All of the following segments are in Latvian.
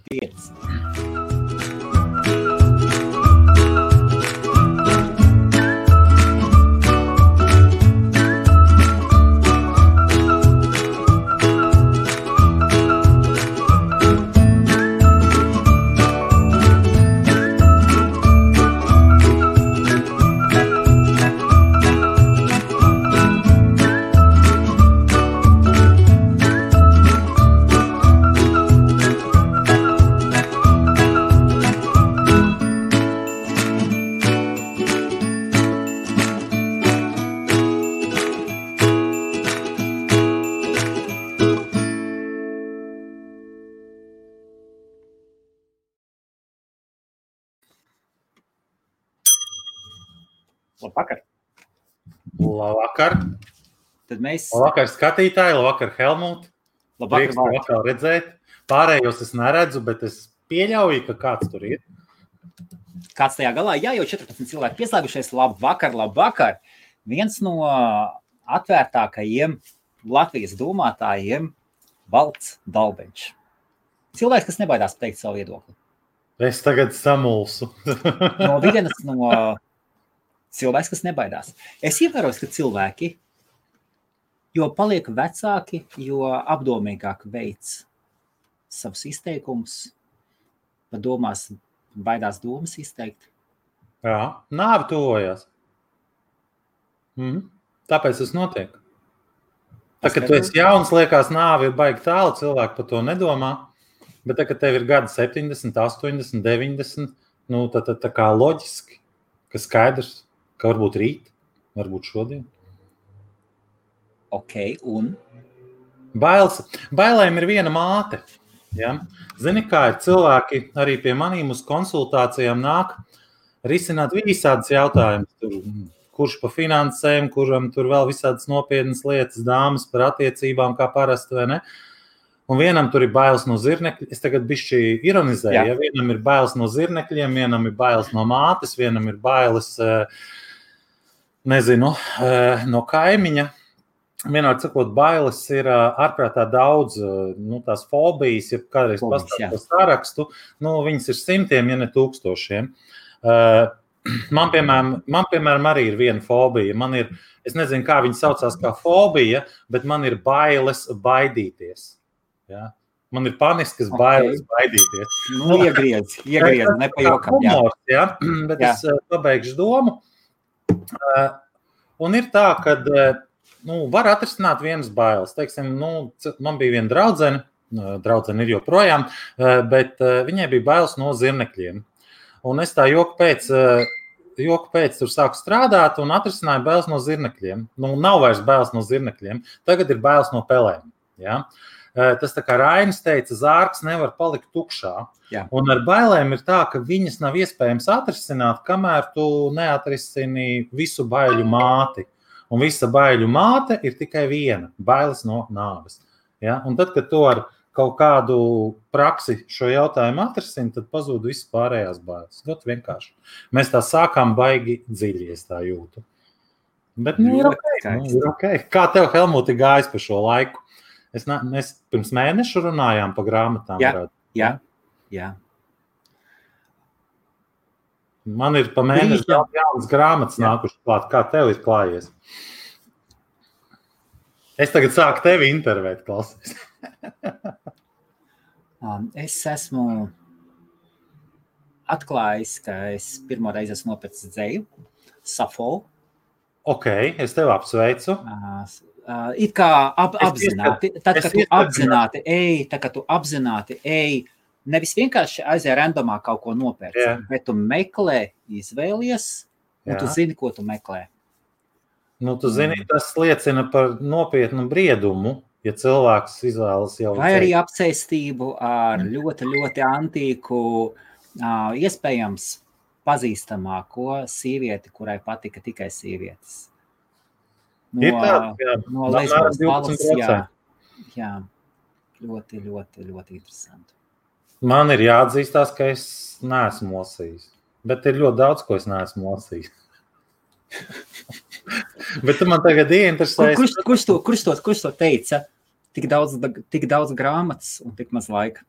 5. Labvakar. Labvakar. Tad mēs... Labvakar skatītāji, labvakar Helmut. Labvakar, Prieks atkal redzēt. Pārējos es neredzu, bet es pieļauju, ka kāds tur ir. Kāds tajā galā? Jā, jau 14 cilvēki pieslēgušies. Labvakar, labvakar. Viens no atvērtākajiem Latvijas domātājiem Valds Dalbeņš. Cilvēks, kas nebaidās teikt savu viedokli. Es tagad samulsu. No vienas no cilvēks, kas nebaidās. Es ievēroju, ka cilvēki, jo paliek vecāki, jo apdomīgāk veids savus izteikumus, domās, baidās domas izteikt. Jā, nāve tuvojās. Tāpēc tas notiek. Tā, kad tu esi jauns, liekas, nāve ir baigi tālu, cilvēki par to nedomā, bet tā, kad tev ir gadi 70, 80, 90, nu, tad tā kā loģiski, ka skaidrs, ka varbūt rīt, varbūt šodien. Ok, un? Bailēm ir viena māte. Ja? Zini, kā ir cilvēki arī pie manīm uz konsultācijām nāk risināt visādas jautājumus. Kurš pa finansēm, kuram tur vēl visādas nopietnas lietas, dāmas par attiecībām, kā parasti, vai ne? Un vienam tur ir bailes no zirnekļiem. Es tagad bišķi ironizēju. Ja? Vienam ir bailes no zirnekļiem, vienam ir bailes no mātes, vienam ir bailes... nezinu, no kaimiņa. Vienādi sakot, bailes ir ārprātā daudz, tās fobijas, ja kādreiz pastāv to sarakstu, viņas ir simtiem, ja ne tūkstošiem. Man, piemēram, arī ir viena fobija. Man ir, es nezinu, kā viņa saucās kā fobija, bet man ir bailes baidīties. Ja? Man ir paniskas bailes baidīties. Iegriedz, nepajokam. Humors, ja? Bet es pabeigšu domu. Un ir tā, ka var atrisināt vienas bailes. Teiksim, man bija viena draudzene ir joprojām, bet viņai bija bailes no zirnekļiem. Un es tā joku pēc tur sāku strādāt un atrisināju bailes no zirnekļiem. Nav vairs bailes no zirnekļiem, tagad ir bailes no pelēm. Ja? Tas tā kā Rainis teica, zārks nevar palikt tukšā. Jā. Un ar bailēm ir tā, ka viņas nav iespējams atrisināt, kamēr tu neatrisini visu baiļu māti. Un visa baiļu māte ir tikai viena – bailes no nāves. Ja? Un tad, kad tu ar kaut kādu praksi šo jautājumu atrisini, tad pazūd visas pārējās bailes. Ļoti vienkārši. Mēs tā sākām baigi dziļi, es tā jūtu. Bet ir ok. Kā tev, Helmuti, gājis pa šo laiku? Mēs pirms mēnešu runājām pa grāmatām. Jā. Man ir pa mēnešu jaunas grāmatas nākuši klāt. Kā tev ir klājies? Es tagad sāku tevi intervēt, klausies. Es esmu atklājis, ka es pirmo reizi esmu nopircis dzeju, Safo. Ok, es tevi apsveicu. It kā apzināti, tad, kad tu apzināti ej, nevis vienkārši aizēj randomā kaut ko nopērci, bet tu meklē, izvēlies, un tu zini, ko tu meklē. Tu zini, tas liecina par nopietnu briedumu, ja cilvēks izvēlas jau... Vai arī apsēstību ar ļoti, ļoti antīku, iespējams pazīstamāko sievieti, kurai patika tikai sievietes. No Lesbos valsts, jā, ļoti, ļoti, ļoti interesanti. Man ir jāatzīstās, ka es neesmu lasījis, bet ir ļoti daudz, ko es neesmu lasījis. Bet tu man tagad ieinteresēs. Kurš to teica? Tik daudz grāmatas un tik maz laika.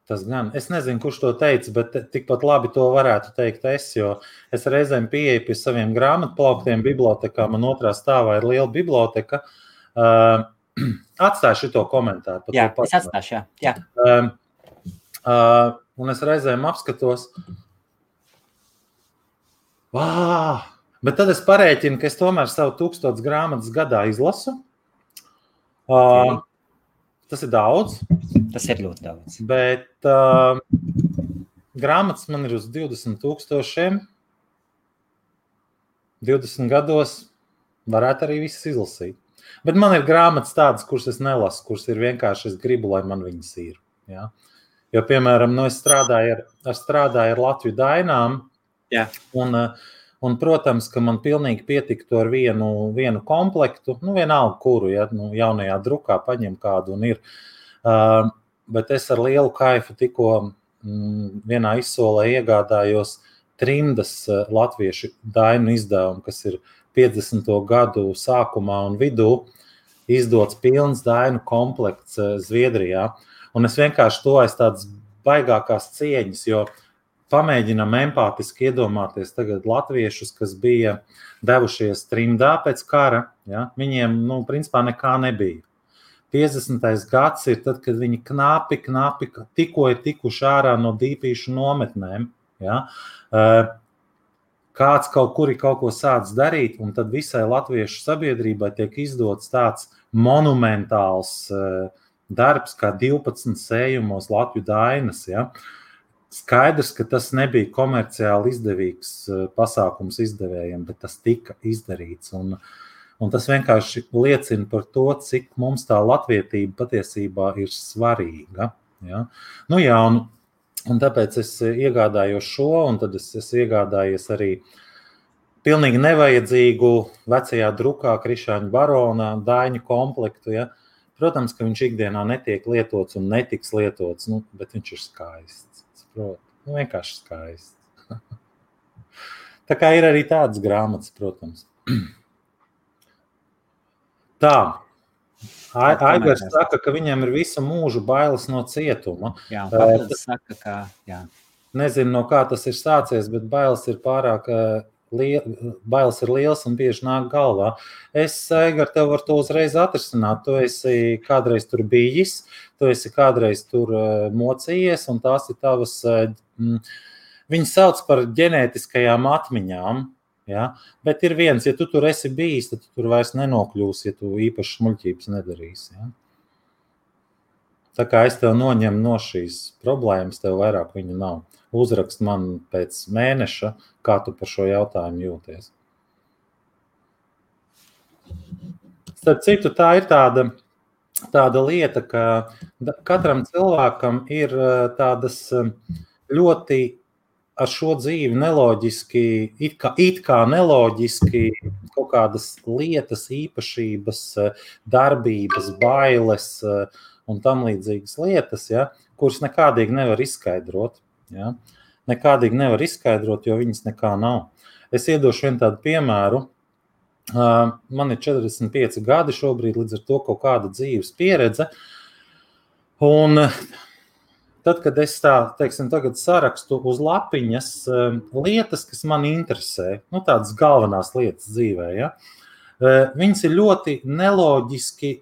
Tas gan. Es nezinu, kurš to teica, bet tikpat labi to varētu teikt es, jo es reizēm pieeju pie saviem grāmatplauktiem bibliotekā. Man otrā stāvā ir liela biblioteka. Atstāju šito komentāru. Jā, es atstāšu, jā. Un es reizēm apskatos. Bet tad es parēķinu, ka es tomēr savu 1000 grāmatas gadā izlasu. Okay. Tas ir daudz. Tas ir ļoti daudz. Bet grāmatas man ir uz 20,000. 20 gados varētu arī visas izlasīt. Bet man ir grāmatas tādas, kuras es nelasu, kuras ir vienkārši es gribu, lai man viņas ir. Ja? Jo, piemēram, es strādāju ar Latviju dainām. Jā. Un, protams, ka man pilnīgi pietiktu ar vienu komplektu, vienalga kuru, ja, jaunajā drukā paņem kādu un ir. Bet es ar lielu kaifu tikko vienā izsolē iegādājos Trimdas latviešu dainu izdevumu, kas ir 50. gadu sākumā un vidū izdots pilns dainu komplekts Zviedrijā. Un es vienkārši to aiz tādas baigākās cieņas, jo pamēģinam empātiski iedomāties tagad latviešus, kas bija devušies trimdā pēc kara. Ja? Viņiem, principā nekā nebija. 50. gads ir tad, kad viņi knapi tikko ir tikuši ārā no dīpīšu nometnēm. Ja? Kāds kaut kur ir kaut ko sācis darīt, un tad visai latviešu sabiedrībai tiek izdots tāds monumentāls darbs, kā 12 sējumos Latviju dainas. Ja? Skaidrs, ka tas nebija komerciāli izdevīgs pasākums izdevējiem, bet tas tika izdarīts. Un tas vienkārši liecina par to, cik mums tā latvietība patiesībā ir svarīga. Ja? Un tāpēc es iegādājos šo, un tad es iegādājies arī pilnīgi nevajadzīgu vecajā drukā Krišāņa Barona daiņu komplektu. Ja? Protams, ka viņš ikdienā netiek lietots un netiks lietots, bet viņš ir skaists. Vienkārši skaists. Tā kā ir arī tādas grāmatas, protams. Tā. Aigars saka, ka viņam ir visu mūžu bailes no cietuma. Jā, papildus saka, ka jā. Nezinu, no kā tas ir sācies, bet bailes ir pārāk bailes ir liels un bieži nāk galvā. Es, Aigar, tev var to uzreiz atrisināt. Tu esi kādreiz tur bijis, tu esi kādreiz tur mocījies, un tās ir tavas, viņas sauc par ģenētiskajām atmiņām. Ja? Bet ir viens, ja tu tur esi bijis, tad tu tur vairs nenokļūsi, ja tu īpaši smuļķības nedarīsi. Ja? Tā kā es tev noņemu no šīs problēmas, tev vairāk viņu nav. Uzrakst man pēc mēneša, kā tu par šo jautājumu jūties. Starp citu, tā ir tāda lieta, ka katram cilvēkam ir tādas ļoti ar šo dzīvi neloģiski, it kā neloģiski kaut kādas lietas, īpašības, darbības, bailes un tam līdzīgas lietas, ja, kuras nekādīgi nevar izskaidrot. Ja? Nekādīgi nevar izskaidrot, jo viņas nekā nav. Es iedošu vienu tādu piemēru. Man ir 45 gadi šobrīd, līdz ar to kaut kāda dzīves pieredze. Un tad, kad es tagad sarakstu uz lapiņas lietas, kas man interesē, tādas galvenās lietas dzīvē, ja? Viņas ir ļoti neloģiski,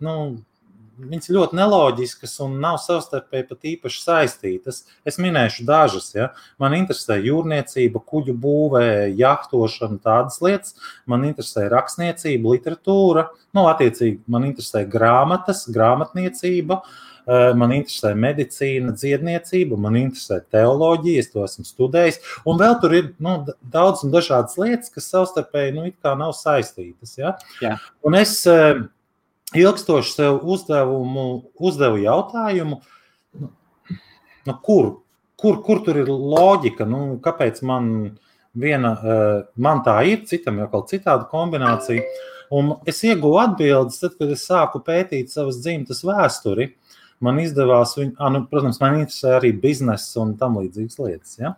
viņas ir ļoti neloģiskas un nav savstarpēji pat īpaši saistītas. Es minēšu dažas. Ja? Man interesē jūrniecība, kuģu būvē, jahtošana, tādas lietas. Man interesē rakstniecība, literatūra. Attiecīgi, man interesē grāmatas, grāmatniecība. Man interesē medicīna, dziedniecība. Man interesē teoloģija, es to esmu studējis. Un vēl tur ir daudz un dažādas lietas, kas savstarpēji it kā nav saistītas. Ja? Jā. Un es ilgstoši sev uzdevu jautājumu, kur tur ir loģika, kāpēc man tā ir, citam jau kaut citāda kombinācija. Un es ieguvu atbildes, tad, kad es sāku pētīt savas dzimtas vēsturi, man izdevās, protams, man interesē arī biznesa un tam līdzīgas lietas. Ja?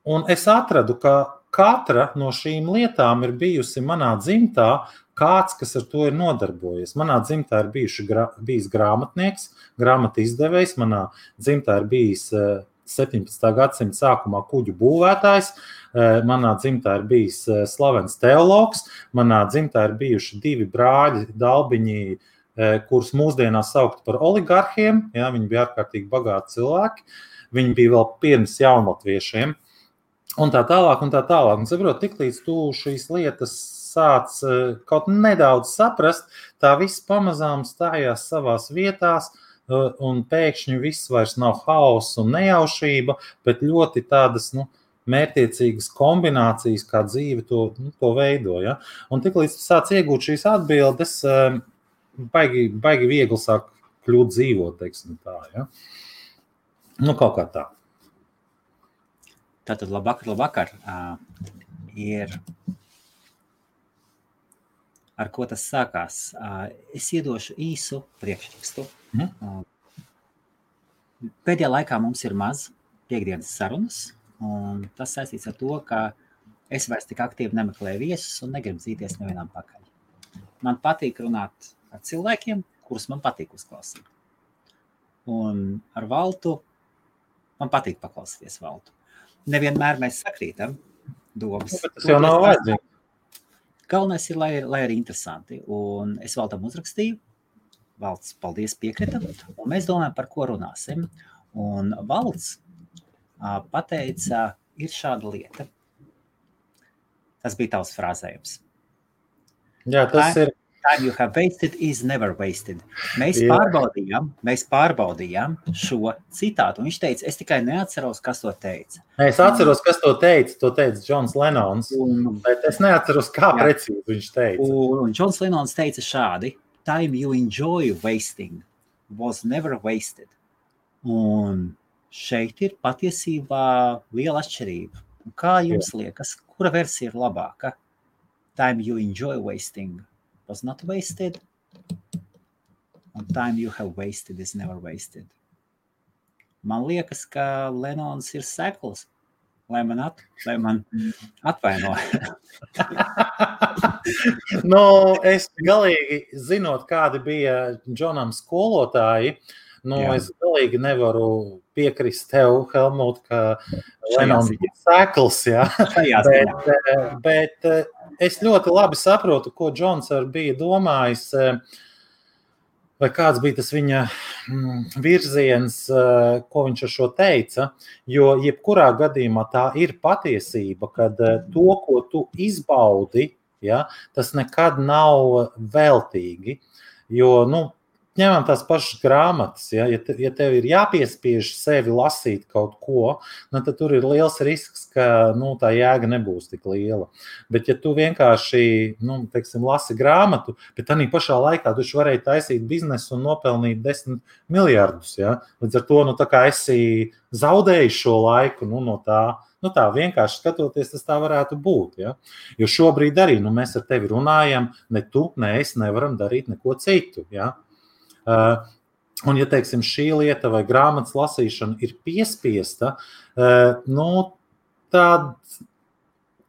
Un es atradu, ka katra no šīm lietām ir bijusi manā dzimtā kāds, kas ar to ir nodarbojies. Manā dzimtā ir bijis grāmatnieks, grāmatu izdevējs, manā dzimtā ir bijis 17. gadsimta sākumā kuģu būvētājs, manā dzimtā ir bijis slavens teologs, manā dzimtā ir bijuši 2 brāļi, dalbiņi, kurus mūsdienās saukt par oligarhiem, ja, viņi bija ārkārtīgi bagāti cilvēki, viņi bija vēl pirms jaunlatviešiem, un tā tālāk, un tā tālāk. Un saprot, tiklīdz tu šīs lietas sāc kaut nedaudz saprast, tā viss pamazām stājās savās vietās, un pēkšņi viss vairs nav haoss un nejaušība, bet ļoti tādas, mērķtiecīgas kombinācijas, kā dzīve to veido. Ja? Un tiklīdz tu sāc iegūt šīs atbildes, baigi viegli sāk kļūt dzīvot, teiksim tā. Ja? Kaut kā tā. Tātad labvakar. Ir ar ko tas sākās. Es iedošu īsu priekšrakstu. Pēdējā laikā mums ir maz piekdienas sarunas, un tas saistīts ar to, ka es vairs tik aktīvi nemeklēju viesus un negribu dzīties nevienam pakaļ. Man patīk runāt ar cilvēkiem, kurus man patīk uzklausīt. Un ar Valtu man patīk paklausīties Valtu. Nevienmēr mēs sakrītam domas. Tas jau nav vajadzīgi. Galvenais ir, lai arī interesanti. Un es Valtam uzrakstīju. Valts, paldies, piekrita. Un mēs domājam, par ko runāsim. Un Valts pateica, ir šāda lieta. Tas bija tavs frāzējums. Jā, tas ir. Time you have wasted is never wasted. Mēs pārbaudījām šo citātu. Un viņš teica, es tikai neatceros, kas to teica. Es atceros, kas to teica Džons Lenons, bet es neatceros, kā precīzi viņš teica. Un Džons Lenons teica šādi, time you enjoy wasting was never wasted. Un šeit ir patiesībā liela atšķirība. Un kā jums liekas, kura versija ir labāka? Time you enjoy wasting was not wasted, and time you have wasted is never wasted. Man liekas, ka Lenons ir sekls, lai man atvaino. Es galīgi zinot, kādi bija Džonam skolotāji, es galīgi nevaru piekrist tev, Helmut, ka Lenons ir sekls, bet es ļoti labi saprotu, ko Džons bija domājis, vai kāds bija tas viņa virziens, ko viņš ar šo teica, jo jebkurā gadījumā tā ir patiesība, kad to, ko tu izbaudi, tas nekad nav veltīgi, jo, ņemam tās pašas grāmatas, ja tev ir jāpiespiež sevi lasīt kaut ko, tad tur ir liels risks, ka tā jēga nebūs tik liela. Bet ja tu vienkārši, lasi grāmatu, bet arī pašā laikā tu varēji taisīt biznesu un nopelnīt 10 miljardus, līdz ar to, tā kā esi zaudējis šo laiku, no tā, tā vienkārši skatoties, tas tā varētu būt, Jo šobrīd arī, mēs ar tevi runājam, ne tu, ne es nevaram darīt neko citu, Un, ja teiksim, šī lieta vai grāmatas lasīšana ir piespiesta, tad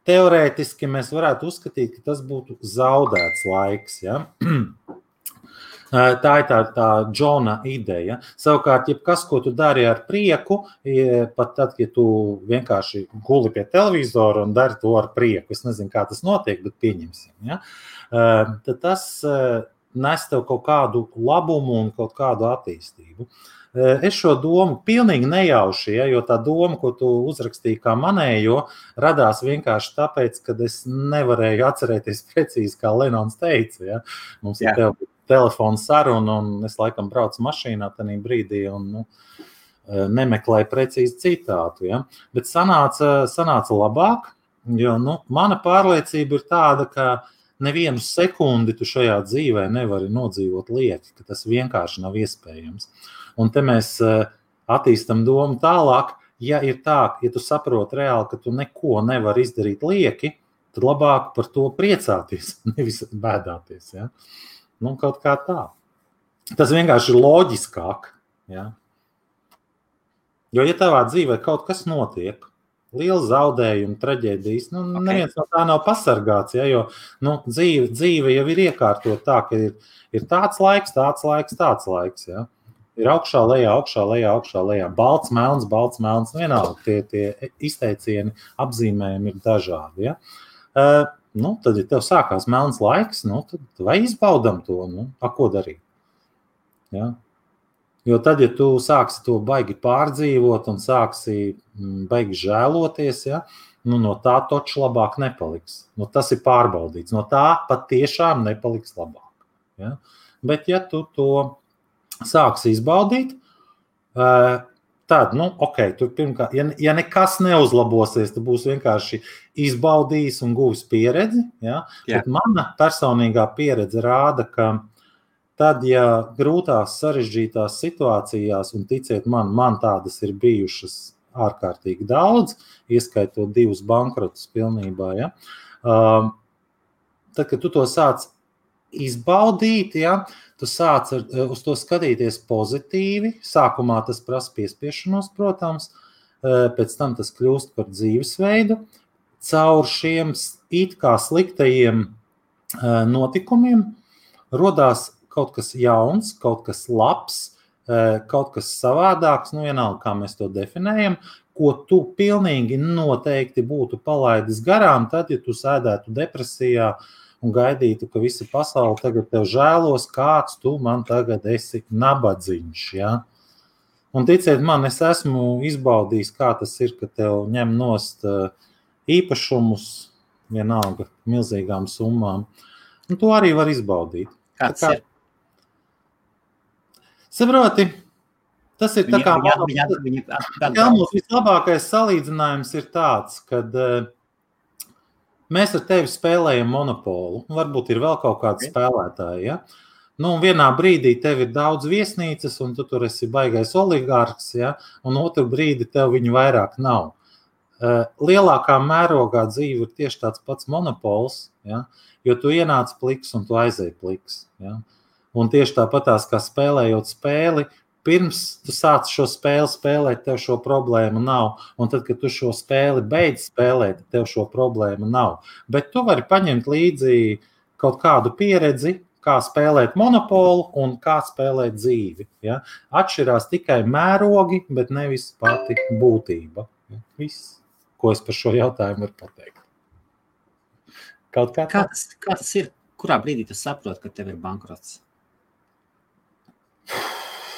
teorētiski mēs varētu uzskatīt, ka tas būtu zaudēts laiks. Tā ir tā Džona ideja. Savukārt, jebkas, ko tu dari ar prieku, pat tad, ja tu vienkārši guli pie televizora un dari to ar prieku, es nezinu, kā tas notiek, bet pieņemsim, tad tas nes tev kaut kādu labumu un kaut kādu attīstību. Es šo domu pilnīgi nejauši, jo tā doma, ko tu uzrakstīji kā manējo, radās vienkārši tāpēc, ka es nevarēju atcerēties precīzi, kā Lenons teica. Mums ir telefona saruna, un es laikam braucu mašīnā tajā brīdī un nemeklēju precīzi citātu. Bet sanāca labāk, jo mana pārliecība ir tāda, ka nevienu sekundi tu šajā dzīvē nevari nodzīvot lieki, ka tas vienkārši nav iespējams. Un te mēs attīstam domu tālāk, ja ir tā, ja tu saproti reāli, ka tu neko nevari izdarīt lieki, tad labāk par to priecāties, nevis bēdāties. Kaut kā tā. Tas vienkārši ir loģiskāk. Jo, ja tavā dzīvē kaut kas notiek, liela zaudējuma, traģēdijas. Neviens no tā nav pasargāts, ja, jo dzīve jau ir iekārtot tā, ka ir tāds laiks, ja. Ir augšā, lejā, balts, melns, vienalga tie izteicieni, apzīmējumi ir dažādi, ja. Tad, ja tev sākās melns laiks, tad vai izbaudam to, ko darīt, ja. Jo tad, ja tu sāksi to baigi pārdzīvot un sāksi baigi žēloties, ja, no tā toču labāk nepaliks. Tas ir pārbaudīts. No tā pat tiešām nepaliks labāk. Ja. Bet, ja tu to sāksi izbaudīt, tad, tur pirmkārt, ja nekas neuzlabosies, tad būs vienkārši izbaudījis un guvis pieredzi. Ja. Bet mana personīgā pieredze rāda, ka tad, ja grūtās, sarežģītās situācijās, un ticiet man tādas ir bijušas ārkārtīgi daudz, ieskaitot 2 bankrotus pilnībā, ja, tad, kad tu to sāc izbaudīt, ja, tu sāc uz to skatīties pozitīvi, sākumā tas prasa piespiešanos, protams, pēc tam tas kļūst par dzīvesveidu, caur šiem it kā sliktajiem notikumiem rodās kaut kas jauns, kaut kas labs, kaut kas savādāks, vienalga, kā mēs to definējam, ko tu pilnīgi noteikti būtu palaidis garām, tad, ja tu sēdētu depresijā un gaidītu, ka visa pasaule tagad tev žēlos, kāds tu man tagad esi nabadziņš, ja? Un ticiet man, es esmu izbaudījis, kā tas ir, ka tev ņem nost īpašumus, vienalga, milzīgām summām, un to arī var izbaudīt. Kāds ir? Saproti, tas ir tā kā mums vislabākais salīdzinājums ir tāds, kad mēs ar tevi spēlējam monopolu, varbūt ir vēl kaut kādi spēlētāji, ja? Un vienā brīdī tev ir daudz viesnīcas, un tu tur esi baigais oligārks, ja? Un otru brīdi tev viņu vairāk nav. Lielākā mērogā dzīve ir tieši tāds pats monopols, ja? Jo tu ienāc pliks un tu aizēji pliks, ja? Un tieši tāpatās, kā spēlējot spēli, pirms tu sāc šo spēli spēlēt, tev šo problēmu nav. Un tad, kad tu šo spēli beidz spēlēt, tev šo problēmu nav. Bet tu vari paņemt līdzi kaut kādu pieredzi, kā spēlēt monopolu un kā spēlēt dzīvi. Ja? Atšķirās tikai mērogi, bet nevis pati būtība. Viss, ko es par šo jautājumu varu pateikt. Kaut kā kā tas ir? Kurā brīdī tu saproti, ka tev ir bankrots?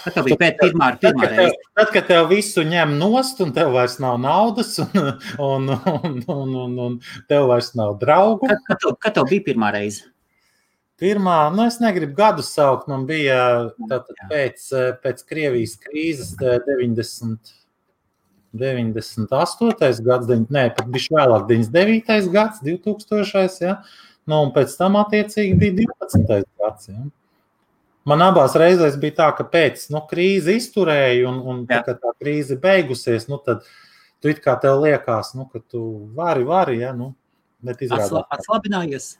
Tad tev bija pirmā reize. Tad, kad tev visu ņem nost un tev vairs nav naudas un tev vairs nav draugu. Kad tev bija pirmā reize? Pirmā, es negribu gadus saukt, man bija pēc Krievijas krīzes 98. gads, pat bišķi vēlāk 99. gads, 2000. Ja? Un pēc tam attiecīgi bija 12. gads. Ja? Man abās reizēs bija tā, ka pēc krīze izturēja un kad tā krīze beigusies, tad tu it kā tev liekas, ka tu vari, ja, bet izrādās. Atslabinājies?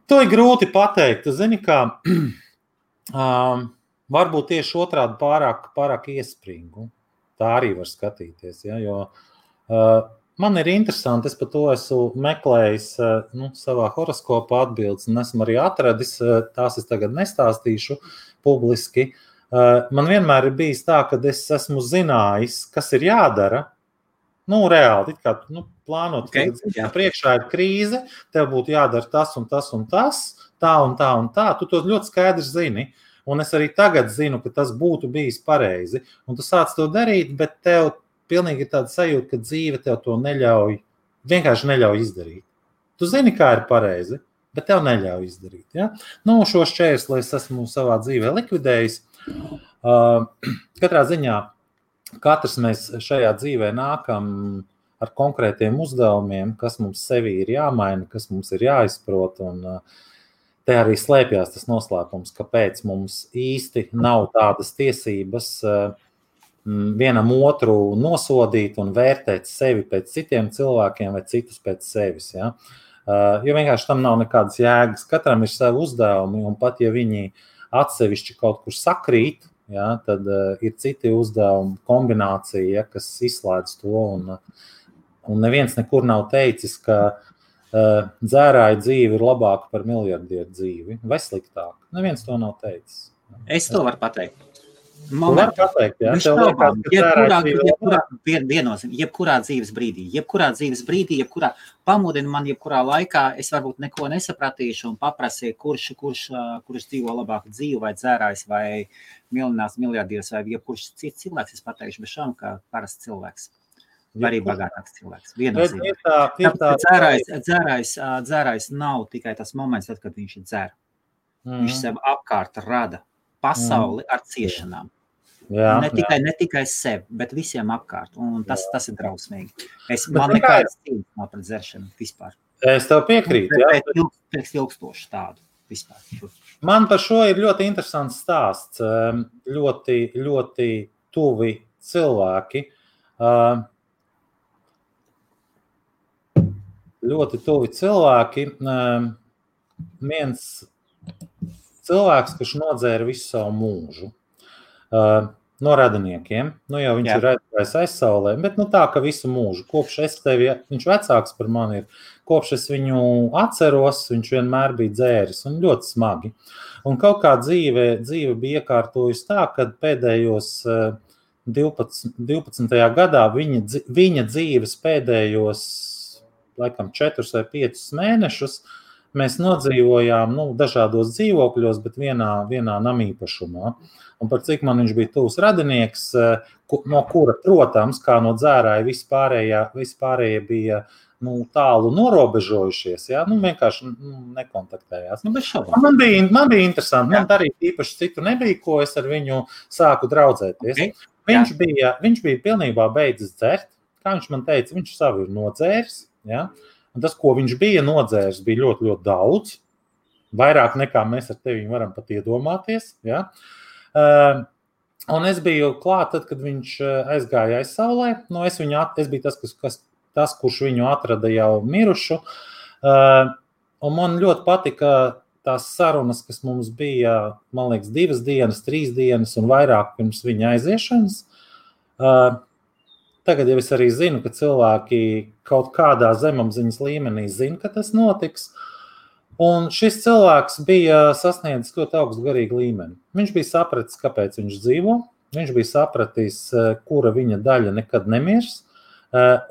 To ir grūti pateikt. Tu zini, kā varbūt tieši otrādi pārāk iespringu. Tā arī var skatīties, ja, jo man ir interesanti, es par to esmu meklējis savā horoskopā atbildes un esmu arī atradis, tās es tagad nestāstīšu publiski. Man vienmēr ir bijis tā, ka es esmu zinājis, kas ir jādara. Reāli, it kā plānot, priekšā ir krīze, tev būtu jādara tas un tas un tas, tā un tā un tā. Tu to ļoti skaidri zini. Un es arī tagad zinu, ka tas būtu bijis pareizi. Un tu sāc to darīt, bet tev pilnīgi ir tāda sajūta, ka dzīve tev to vienkārši neļauj izdarīt. Tu zini, kā ir pareizi, bet tev neļauj izdarīt. Ja? Šo šķērsli es esmu savā dzīvē likvidējis. Katrā ziņā katrs mēs šajā dzīvē nākam ar konkrētiem uzdevumiem, kas mums sevī ir jāmaina, kas mums ir jāizprot. Un te arī slēpjās tas noslēpums, kāpēc mums īsti nav tādas tiesības vienam otru nosodīt un vērtēt sevi pēc citiem cilvēkiem vai citus pēc sevis. Ja? Jo vienkārši tam nav nekādas jēgas. Katram ir savi uzdevumi, un pat ja viņi atsevišķi kaut kur sakrīt, ja, tad ir citi uzdevumi kombinācija, ja, kas izslēdz to, un neviens nekur nav teicis, ka dzērāja dzīve ir labāka par miljardieru dzīvi, vai sliktāk. Neviens to nav teicis. Es to varu pateikt. Var pateikt, ja? Tev liekas, ka jebkurā dzīves brīdī, pamudina man jebkurā laikā, es varbūt neko nesapratīšu un paprasīju, kurš dzīvo labāku dzīvi, vai dzērājs, vai miljonārs miljardieris, vai jebkurš cits cilvēks, es pateikšu, bez šām, kā parasts cilvēks. Vai arī bagātāks cilvēks. Dzērājs nav tikai tas moments, tad, kad viņš ir dzer. Viņš sev apkārt rada pasauli ar ciešanām. Jā, ne tikai sev, bet visiem apkārt. Un tas ir drausmīgi. Man nekādas cīņas nav pret dzeršanu vispār. Es tev piekrītu. Pēc ilgstoši tādu vispār. Man par šo ir ļoti interesants stāsts. Ļoti, ļoti tuvi cilvēki. Ļoti tuvi cilvēki. Viens cilvēks, kurš nodzēra visu savu mūžu. No radiniekiem. Nu jau viņš ir aizgājis aizsaulē, bet tā, ka visu mūžu. Kopš viņš vecāks par mani ir, kopš es viņu atceros, viņš vienmēr bija dzēris un ļoti smagi. Un kaut kā dzīve bija iekārtojusi tā, kad pēdējos 12. gadā viņa dzīves pēdējos, laikam, 4 vai 5 mēnešus mēs nodzīvojām dažādos dzīvokļos, bet vienā namīpašumā. Un par cik man viņš bija tuvs radinieks, no kura, protams, kā no dzērāja, vispārējie bija tālu norobežojušies, ja? Vienkārši nekontaktējās. Man bija interesanti, man arī īpaši citu nebija, ko es ar viņu sāku draudzēties. Okay. Viņš bija pilnībā beidzis dzert, kā viņš man teica, viņš savu ir nodzēris, ja? Un tas, ko viņš bija nodzēris, bija ļoti, ļoti daudz, vairāk nekā mēs ar tevi varam pat iedomāties, ja? Un es biju klāt, tad, kad viņš aizgāja aizsaulē. Es biju tas, kurš viņu atrada jau mirušu. Un man ļoti patika tās sarunas, kas mums bija, man liekas, 2 dienas, 3 dienas un vairāk pirms viņa aiziešanas. Tagad jau es arī zinu, ka cilvēki kaut kādā zemapziņas līmenī zina, ka tas notiks. Un šis cilvēks bija sasniedzis ļoti augstu garīgu līmeni. Viņš bija sapratis, kāpēc viņš dzīvo, viņš bija sapratis, kura viņa daļa nekad nemirs,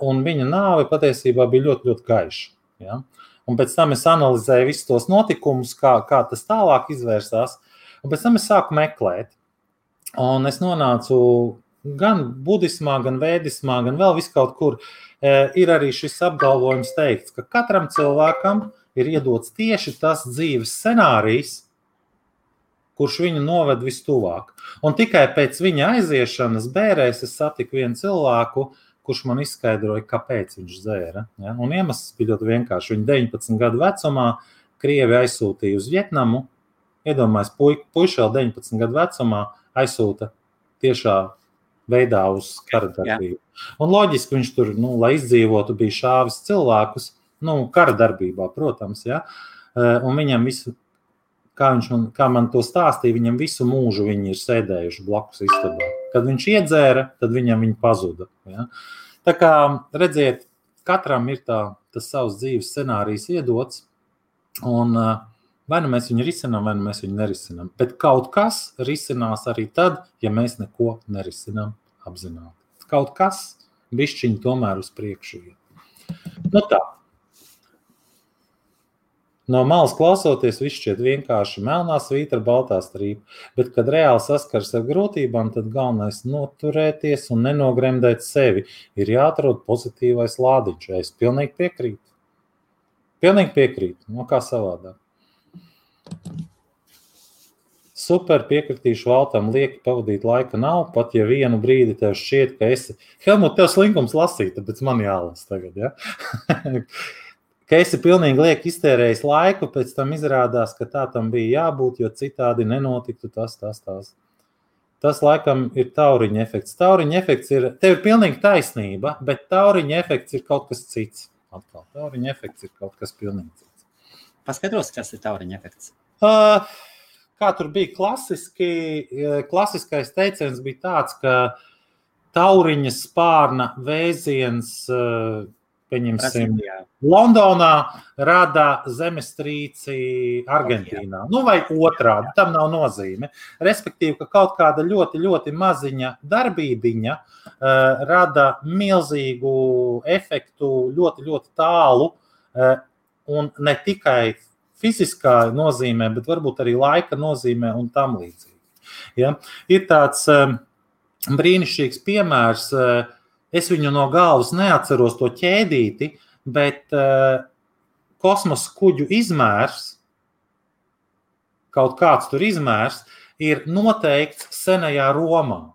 un viņa nāve patiesībā bija ļoti, ļoti gaiša. Ja? Un pēc tam es analizēju visus tos notikumus, kā tas tālāk izvērsās, un pēc tam es sāku meklēt. Un es nonācu gan budismā, gan vēdismā, gan vēl viskaut kur. Ir arī šis apgalvojums teikts, ka katram cilvēkam ir iedots tieši tas dzīves scenārijs, kurš viņu noved vistuvāk. Un tikai pēc viņa aiziešanas bērēs es satiku vienu cilvēku, kurš man izskaidroja, kāpēc viņš dzēra. Ja? Un iemesls bija ļoti vienkārši. Viņa 19 gadu vecumā Krievi aizsūtīja uz Vietnamu. Iedomājies, puiši vēl 19 gadu vecumā aizsūta tiešā veidā uz kara darbību. Un loģiski viņš tur, lai izdzīvotu, bija šāvis cilvēkus, kara darbībā, protams, ja. Un viņam visu, kā man to stāstīja, viņam visu mūžu viņi ir sēdējuši blakus istabā. Kad viņš iedzēra, tad viņam viņi pazuda. Ja. Tā kā, redziet, katram ir tas savs dzīves scenārijs iedots, un vai nu mēs viņu risinām, vai nu mēs viņu nerisinām. Bet kaut kas risinās arī tad, ja mēs neko nerisinām apzināti. Kaut kas bišķiņi tomēr uz priekšu ir. Tā. No malas klausoties, viss šķiet vienkārši melnā svītra, baltā strīpa, bet, kad reāli saskars ar grūtībām, tad galvenais noturēties un nenogremdēt sevi. Ir jāatrod pozitīvais lādiņš. Es pilnīgi piekrītu. Kā savādāk. Super, piekritīšu Valtam, lieki pavadīt laika nav, pat ja vienu brīdi tev šķiet, ka esi... Helmut, tev slinkums lasīt, tāpēc man jālas tagad, ja? Ka esi pilnīgi lieki iztērējis laiku, pēc tam izrādās, ka tā tam bija jābūt, jo citādi nenotiktu tas. Tas laikam ir tauriņa efekts. Tauriņa efekts ir, tev ir pilnīgi taisnība, bet tauriņa efekts ir kaut kas cits. Atkal, tauriņa efekts ir kaut kas pilnīgi cits. Paskaidros, kas ir tauriņa efekts? kā tur bija klasiskais teiciens bija tāds, ka tauriņa spārna vēziens, pieņemsim, Londonā rada zemestrīci Argentīnā. Nu, vai otrādi, tam nav nozīme. Respektīvi, ka kaut kāda ļoti, ļoti maziņa darbībiņa rada milzīgu efektu ļoti, ļoti tālu un ne tikai fiziskā nozīmē, bet varbūt arī laika nozīmē un tam līdzīgi. Ja? Ir tāds brīnišķīgs piemērs, es viņu no galvas neatceros to ķēdīti, bet kosmosa kuģu izmērs, kaut kāds tur izmērs, ir noteikts senajā Romā.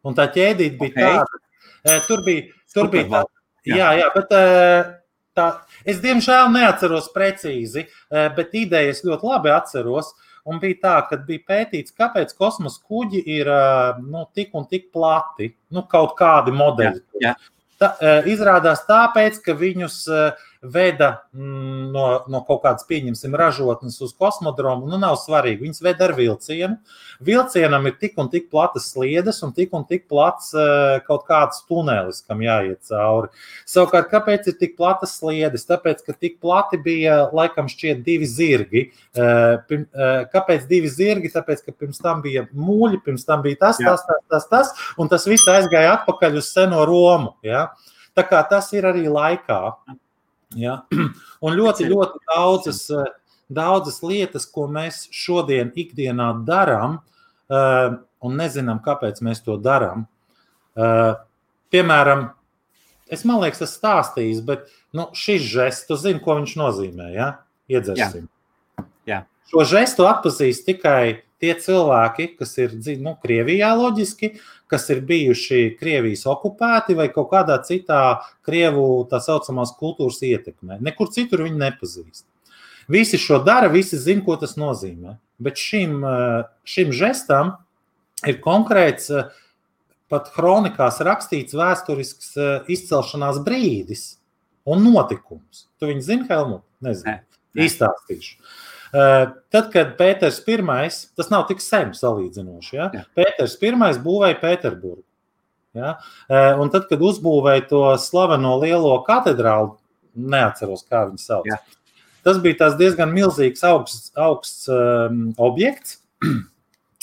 Un tā ķēdīte bija tāda, tur bija tā, jā, bet tā, es diemžēl neatceros precīzi, bet idejas ļoti labi atceros, un bija tā, kad bija pētīts, kāpēc kosmosa kuģi ir tik un tik plati, kaut kādi modeļi. Jā. Izrādās tāpēc, ka viņus veda no kaut kādas, pieņemsim, ražotnes uz kosmodromu, nav svarīgi, viņus veda ar vilcienu. Vilcienam ir tik un tik platas sliedes un tik plats kaut kāds tunelis, kam jāiet cauri. Savukārt, kāpēc ir tik platas sliedes? Tāpēc, ka tik plati bija, laikam šķiet, 2 zirgi. Kāpēc 2 zirgi? Tāpēc, ka pirms tam bija mūļi, pirms tam bija tas, un tas viss aizgāja atpakaļ uz seno Romu. Ja? Tā kā tas ir arī laikā. Ja? Un ļoti, ļoti daudzas lietas, ko mēs šodien ikdienā darām, un nezinām, kāpēc mēs to darām. Piemēram, man liekas, tas stāstījis, bet šis žests, tu zini, ko viņš nozīmē, ja? Iedzersim. Jā. Šo žestu atpazīst tikai tie cilvēki, kas ir Krievijā loģiski, kas ir bijuši Krievijas okupēti vai kaut kādā citā Krievu tā saucamās kultūras ietekmē. Nekur citur viņi nepazīst. Visi šo dara, visi zina, ko tas nozīmē. Bet šim žestam ir konkrēts, pat kronikās rakstīts vēsturisks izcelšanās brīdis un notikums. Tu viņu zini, Helmut? Nezinu. Izstāstīšu. Tad, kad Pēters I, tas nav tik sen salīdzinoši, ja? Pēters I būvēja Pēterburgu. Ja? Un tad, kad uzbūvēja to slaveno lielo katedrālu, neatceros, kā viņu sauc. Ja. Tas bija tās diezgan milzīgs augsts objekts,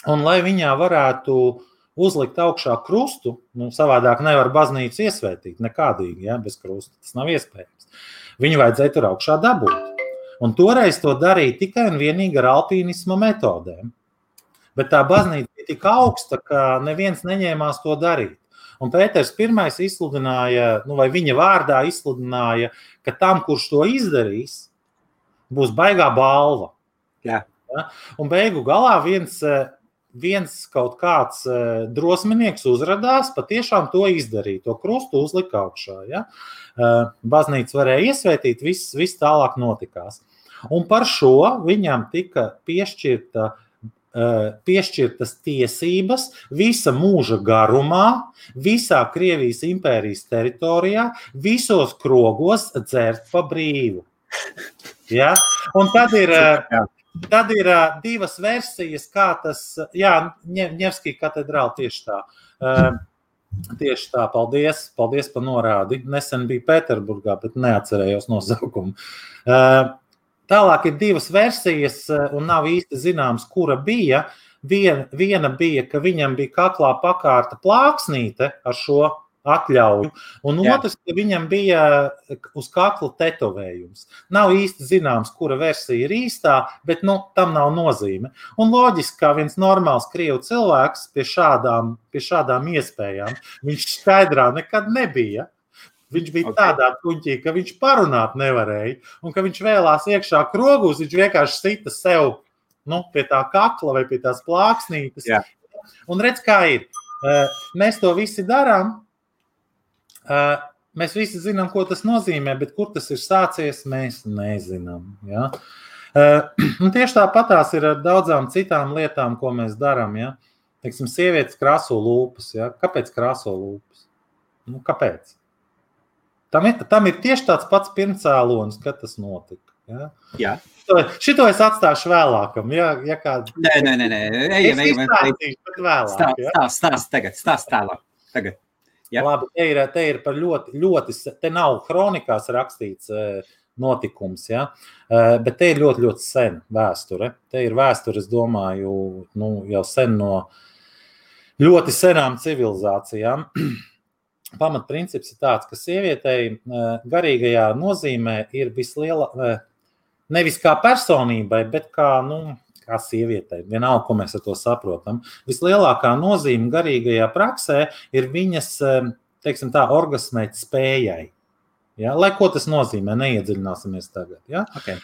un lai viņā varētu uzlikt augšā krustu, savādāk nevar baznīcu iesvētīt nekādīgi, ja? Bez krusta, tas nav iespējams. Viņu vajadzēja tur augšā dabūt. Un toreiz to darīja tikai un vienīgi ar alpīnisma metodēm. Bet tā baznīca bija tik augsta, ka neviens neņēmās to darīt. Un Pēters I izsludināja, vai viņa vārdā izsludināja, ka tam, kurš to izdarīs, būs baigā balva. Jā. Ja? Un beigu galā viens kaut kāds drosminieks uzradās, patiešām to izdarīja, to krustu uzlika augšā. Ja? Baznīca varēja iesvētīt, viss tālāk notikās. Un par šo viņam tika piešķirtas tiesības visa mūža garumā, visā Krievijas impērijas teritorijā, visos krogos dzert pa brīvu. Ja? Un tad ir 2 versijas, kā tas, Ņevskija katedrāla tieši tā. Tieši tā, paldies par norādi. Nesen bija Pēterburgā, bet neatcerējos nosaukumu. Tālāk ir 2 versijas, un nav īsti zināms, kura bija. Viena bija, ka viņam bija kaklā pakārta plāksnīte ar šo atļauju, un otrs, ka viņam bija uz kakla tetovējums. Nav īsti zināms, kura versija ir īstā, bet tam nav nozīme. Un loģiski, kā viens normāls krievu cilvēks pie šādām iespējām, viņš skaidrā nekad nebija. Viņš bija tādā tuņķī, ka viņš parunāt nevarēja, un ka viņš vēlās iekšā krogus, viņš vienkārši sita sev pie tā kakla vai pie tās plāksnītes. Jā. Un redz, kā ir. Mēs to visi darām. Mēs visi zinām, ko tas nozīmē, bet kur tas ir sācies, mēs nezinām. Ja? Un tieši tāpatās ir ar daudzām citām lietām, ko mēs darām. Ja? Teiksim, sievietes krāso lūpas. Ja? Kāpēc krāso lūpas? Kāpēc? Tam ir tieši tāds pats pirmcēlonis, kad tas notika. Ja? Jā. Šito es atstāšu vēlākam. Ja kāds... Nē. Es izstāstīšu, bet vēlāk. Stāst tālāk. Tagad. Ja? Labi, te ir par ļoti, te nav kronikās rakstīts notikums, ja? Bet te ir ļoti, ļoti sen vēsture. Te ir vēsture, es domāju, jau sen no ļoti senām civilizācijām. Pamatprincips ir tāds, ka sievietei garīgajā nozīmē ir nevis kā personībai, bet kā sievietei. Vienalga, ko mēs ar to saprotam. Vislielākā nozīme garīgajā praksē ir viņas, teiksim tā, orgasmēt spējai. Ja? Lai ko tas nozīmē, neiedziļināsimies tagad. Ja? Okay.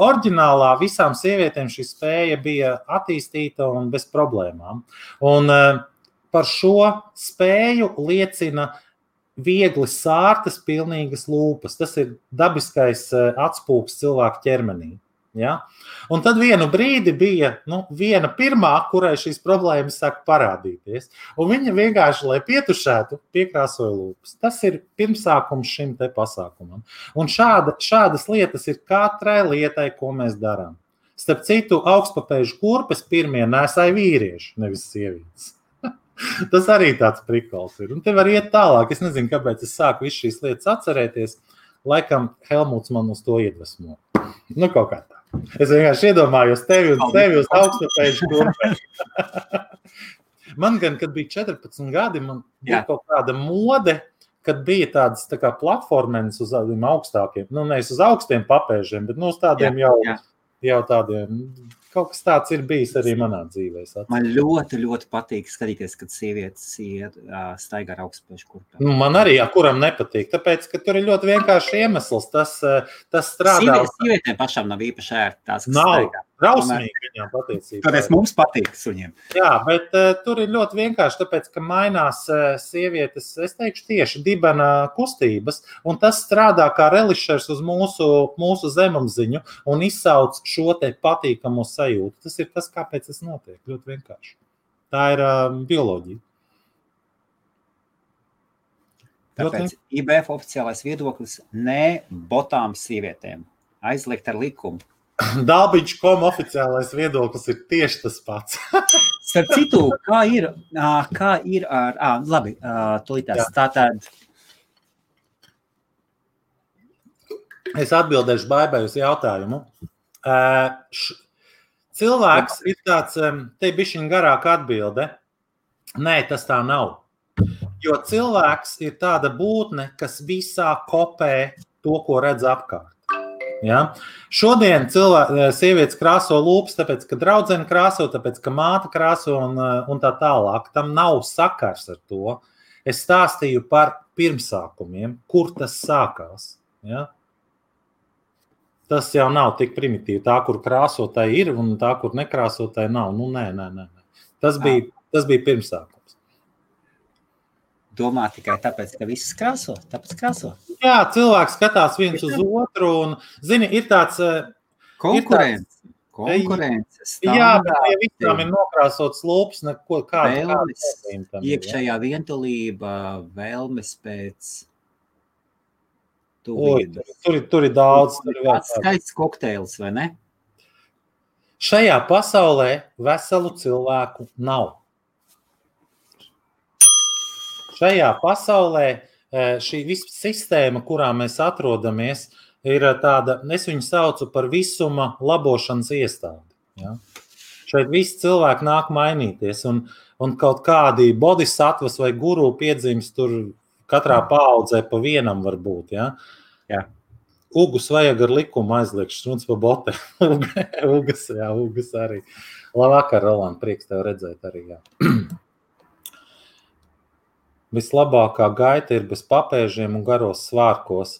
Oriģinālā visām sievietēm šī spēja bija attīstīta un bez problēmām. Un par šo spēju liecina viegli sārtas, pilnīgas lūpas. Tas ir dabiskais atspūgs cilvēku ķermenī. Ja? Un tad vienu brīdi bija viena pirmā, kurai šīs problēmas sāk parādīties. Un viņa vienkārši, lai pietušētu, piekrāsoja lūpas. Tas ir pirmsākums šim te pasākumam. Un šādas lietas ir katrai lietai, ko mēs darām. Starp citu, augstpapēžu kurpes pirmie nesāja vīrieši, nevis sievietes. Tas arī tāds prikols ir. Un te var iet tālāk. Es nezinu, kāpēc es sāku visu šīs lietas atcerēties. Laikam Helmuts man uz to iedvesmo. Kaut kā tā. Es vienkārši iedomājos tevi uz augstpapēžu kurpēm. Man gan, kad bija 14 gadi, man bija kaut kāda mode, kad bija tādas tā kā platformenes uz tādiem augstākiem, nevis uz augstiem papēžiem, bet uz tādiem jau tādiem. Kaut kas tāds ir bijis arī manā dzīvē. Man ļoti, ļoti patīk skatīties, kad sievietes staigā ar augstpapēžu kurpēm. Man arī, kuram nepatīk, tāpēc, ka tur ir ļoti vienkārši iemesls. Tas strādā. Sievietēm pašām nav īpaši ērti tās, kas nav staigā. Drausmīgi viņām patiesībā. Tāpēc mums patīk suņiem. Jā, bet tur ir ļoti vienkārši, tāpēc, ka mainās sievietes, es teikšu tieši dibena kustības, un tas strādā kā relišers uz mūsu zemapziņu un izsauc šo te patīkamo sajūtu. Tas ir tas, kāpēc tas notiek. Ļoti vienkārši. Tā ir bioloģija. Tāpēc IBF oficiālais viedoklis ne botām sievietēm. Aizliegt ar likumu. Dalbiņš.com oficiālais viedoklis ir tieši tas pats. Starp citu, kā ir ar... Labi, tūlītās. Tātad... Es atbildēšu Baibai uz jautājumu. Cilvēks ir tāds, te bišķiņ garāka atbilde. Nē, tas tā nav. Jo cilvēks ir tāda būtne, kas visā kopē to, ko redz apkārt. Ja? Šodien sievietes krāso lūpas, tāpēc, ka draudzene krāso, tāpēc, ka māte krāso un tā tālāk. Tam nav sakars ar to. Es stāstīju par pirmsākumiem, kur tas sākās. Ja? Tas jau nav tik primitīvi. Tā, kur krāsotāji ir, un tā, kur nekrāsotāji nav. Nē. Tas bija pirmsākums. Domā tikai tāpēc, ka viss krāso? Tāpēc krāso? Jā, cilvēks skatās viens uz otru un, zini, ir tāds... Konkurences. Jā, bet ja visām ir nokrāsots lūpas, vēlmes, iekšējā vientulība, vēlmes pēc tuvības. Tur ir daudz. Kāds skaists kokteils, vai ne? Šajā pasaulē veselu cilvēku nav. Šajā pasaulē šī visa sistēma, kurā mēs atrodamies, ir tāda, es viņu saucu par visuma labošanas iestādi. Ja? Šeit visi cilvēki nāk mainīties, un kaut kādi bodhisattvas vai guru piedzimst tur katrā paaudzē pa vienam var būt. Ja? Jā. Ugus vajag ar likumu aizliegt, šruns pa bote. Ugas arī. Labvakar, Roland, prieks tev redzēt arī. Jā. Vislabākā gaita ir bez papēžiem un garos svārkos.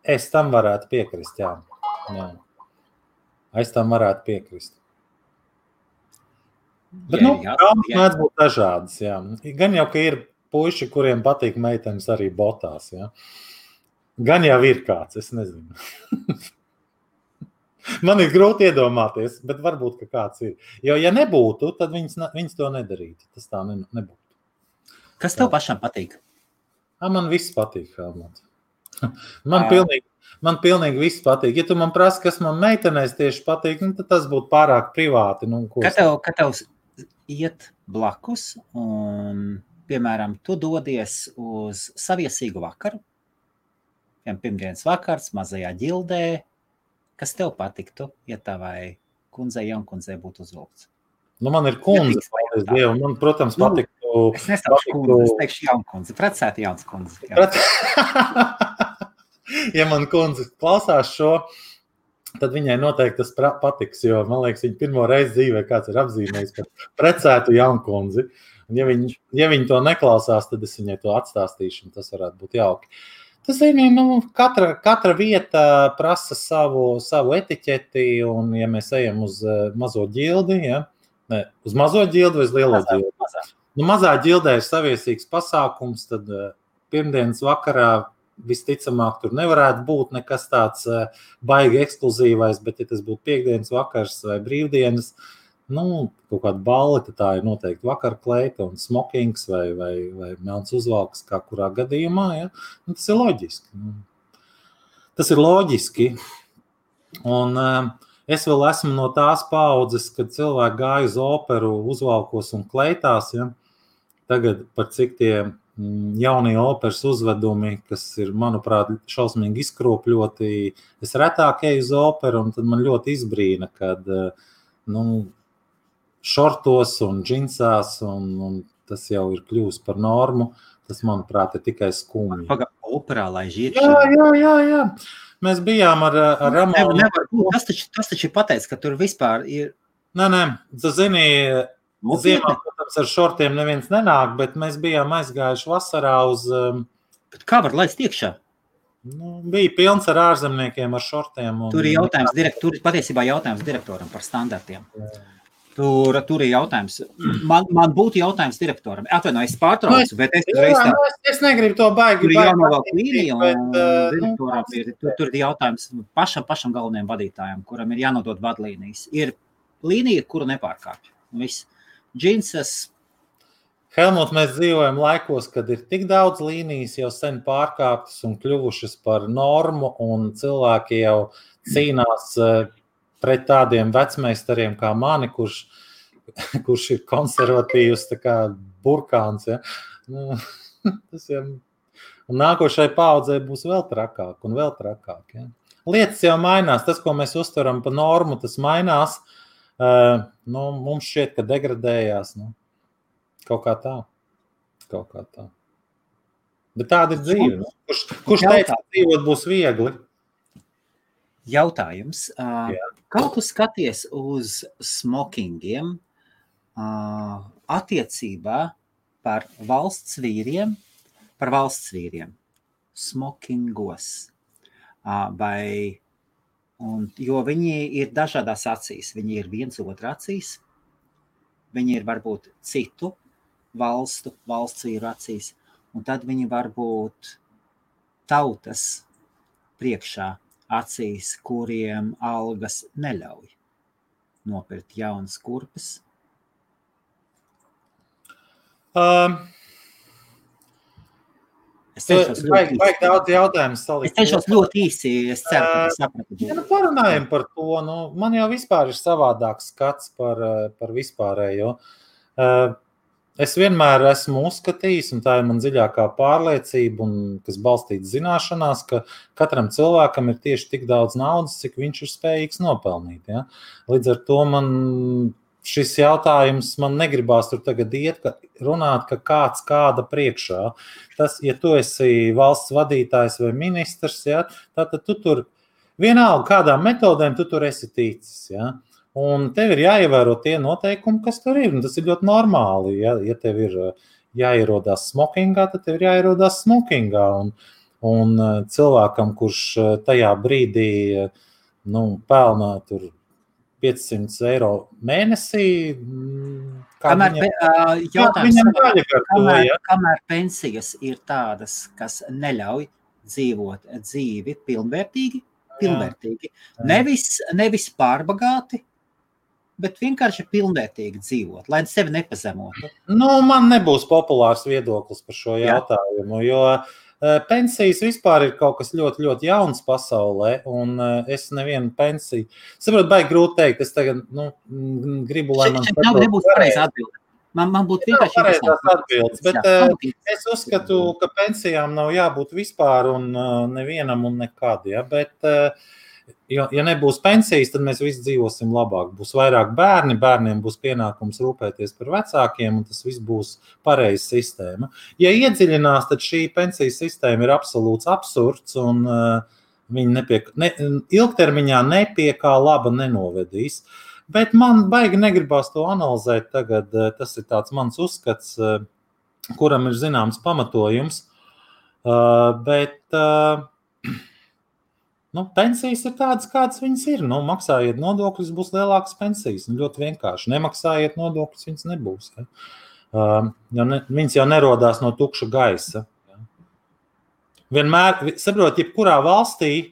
Es tam varētu piekrist, jā. Es tam varētu piekrist. Bet, traumas mēdz būt dažādas, jā. Gan jau, ka ir puiši, kuriem patīk meitenes arī botās, jā. Gan jau ir kāds, es nezinu. Man ir grūti iedomāties, bet varbūt, ka kāds ir. Jo, ja nebūtu, tad viņas to nedarītu. Tas tā nebūtu. Kas tev pašam patīk? Man viss patīk, Helmut. Man pilnīgi viss patīk. Ja tu man prasi, kas man meitenēs tieši patīk, tad tas būtu pārāk privāti. Kad tev iet blakus un, piemēram, tu dodies uz saviesīgu vakaru, pirmdienas vakars, mazajā ģildē, kas tev patiktu, ja tavai kundzei, jaunkundzei būtu uzvilkts? Man ir kundze, paldies Dievam. Man, protams, patiktu... Es nestāšu kundze, es teikšu jaunkundze. Precēta jauns kundze. Ja man kundze klausās šo, tad viņai noteikti tas patiks, jo, man liekas, viņa pirmo reizi dzīvē kāds ir apzīmējis par precētu jaunkundzi. Un ja viņi to neklausās, tad es viņai to atstāstīšu, un tas varētu būt jauki. Tas ir, katra vieta prasa savu etiķeti, un ja mēs ejam uz mazo ģildi, uz mazo ģildi vai uz lielo ģildi? Mazā ģildē ir saviesīgs pasākums, tad pirmdienas vakarā visticamāk tur nevarētu būt nekas tāds baigi ekskluzīvais, bet ja tas būtu piekdienas vakars vai brīvdienas, kaut kāda balli, tad tā ir noteikti vakarkleita un smokings vai melns uzvalks, kā kurā gadījumā, tas ir loģiski. Tas ir loģiski. Un es vēl esmu no tās paaudzes, kad cilvēki gāja uz operu uzvalkos un kleitās, Tagad par cik tie jaunie operas uzvedumi, kas ir, manuprāt, šausmīgi izkropļoti, es retāk eju uz operu, un tad man ļoti izbrīna, kad šortos un džinsās, un tas jau ir kļūst par normu, tas, manuprāt, ir tikai skumji. Operā, lai žiet? Jā. Mēs bijām ar Ramonu. Tas taču pateic, ka tur vispār ir... Nē, tu zini... Ziemā, protams, ar šortiem neviens nenāk, bet mēs bijām aizgājuši vasarā uz... Kā var laist iekšā? Bija pilns ar ārzemniekiem, ar šortiem. Tur ir patiesībā jautājums direktoram par standartiem. Tur ir jautājums. Man būtu jautājums direktoram. Es pārtraucu, bet es negribu to baigi. Tur ir jānovelk līnija, un direktoram tur ir jautājums pašam galvenajam vadītājam, kuram ir jānodod vadlīnijas. Ir līnija, kuru nepārkāpj. Viss. Džinsas. Helmut, mēs dzīvojam laikos, kad ir tik daudz līnijas jau sen pārkāptas un kļuvušas par normu, un cilvēki jau cīnās pret tādiem vecmeistariem kā mani, kurš ir konservatīvs, tā kā burkāns. Tas jau... Un nākošai paaudzei būs vēl trakāk un vēl trakāk. Lietas jau mainās, tas, ko mēs uztveram pa normu, tas mainās. Mums šķiet, ka degradējās. Kaut kā tā. Bet tāda ir dzīve. Kurš teica, ka dzīvot būs viegli? Jautājums. Kā tu skaties uz smokingiem attiecībā par valsts vīriem? Smokingos. Jo viņi ir dažādās acīs. Viņi ir viens otra acīs. Viņi ir varbūt citu valsts vīru acīs. Un tad viņi var būt tautas priekšā acīs, kuriem algas neļauj nopirkt jaunas kurpes. Vajag daudz jautājumus salikt. Es teikšos ļoti īsi, es ceru, ka tas sapratu. Parunājam par to. Man jau vispār ir savādāks skats par vispārējo. Es vienmēr esmu uzskatījis, un tā ir man dziļākā pārliecība, kas balstīta zināšanās, ka katram cilvēkam ir tieši tik daudz naudas, cik viņš ir spējīgs nopelnīt. Ja? Līdz ar to šis jautājums man negribās tur tagad runāt, ka kāds kāda priekšā. Tas, ja tu esi valsts vadītājs vai ministrs, ja, tad tu tur vienalga kādām metodēm tu tur esi ticis. Ja. Un tev ir jāievēro tie noteikumi, kas tur ir. Un tas ir ļoti normāli. Ja tev ir jāierodās smokingā, tad tev ir jāierodās smokingā. Un cilvēkam, kurš tajā brīdī pelnā tur 500 eiro mēnesī. Kamēr pensijas ir tādas, kas neļauj dzīvot dzīvi pilnvērtīgi. Nevis pārbagāti, bet vienkārši pilnvērtīgi dzīvot, lai sevi nepazemotu. Man nebūs populārs viedoklis par šo jautājumu, jo Pensijas vispār ir kaut kas ļoti, ļoti jauns pasaulē, un es nevienu pensiju. Saprotu, baigi grūti teikt, es tagad gribu, lai man Šeit nebūs pareizi atbildi. Man būtu vienkārši pareizās atbildes, bet es uzskatu, ka pensijām nav jābūt vispār un nevienam un nekad, ja, bet ja nebūs pensijas, tad mēs visi dzīvosim labāk. Būs vairāk bērni, bērniem būs pienākums rūpēties par vecākiem, un tas viss būs pareiza sistēma. Ja iedziļinās, tad šī pensijas sistēma ir absolūts absurds, un viņi ilgtermiņā nepie kā laba nenovedīs. Bet man baigi negribās to analizēt tagad. Tas ir tāds mans uzskats, kuram ir zināms pamatojums. Bet pensijas ir tādas, kādas viņas ir. Maksājiet nodokļus, būs lielākas pensijas. Ļoti vienkārši. Nemaksājiet nodokļus, viņas nebūs. Viņas jau nerodās no tukša gaisa. Vienmēr, saprot, jebkurā valstī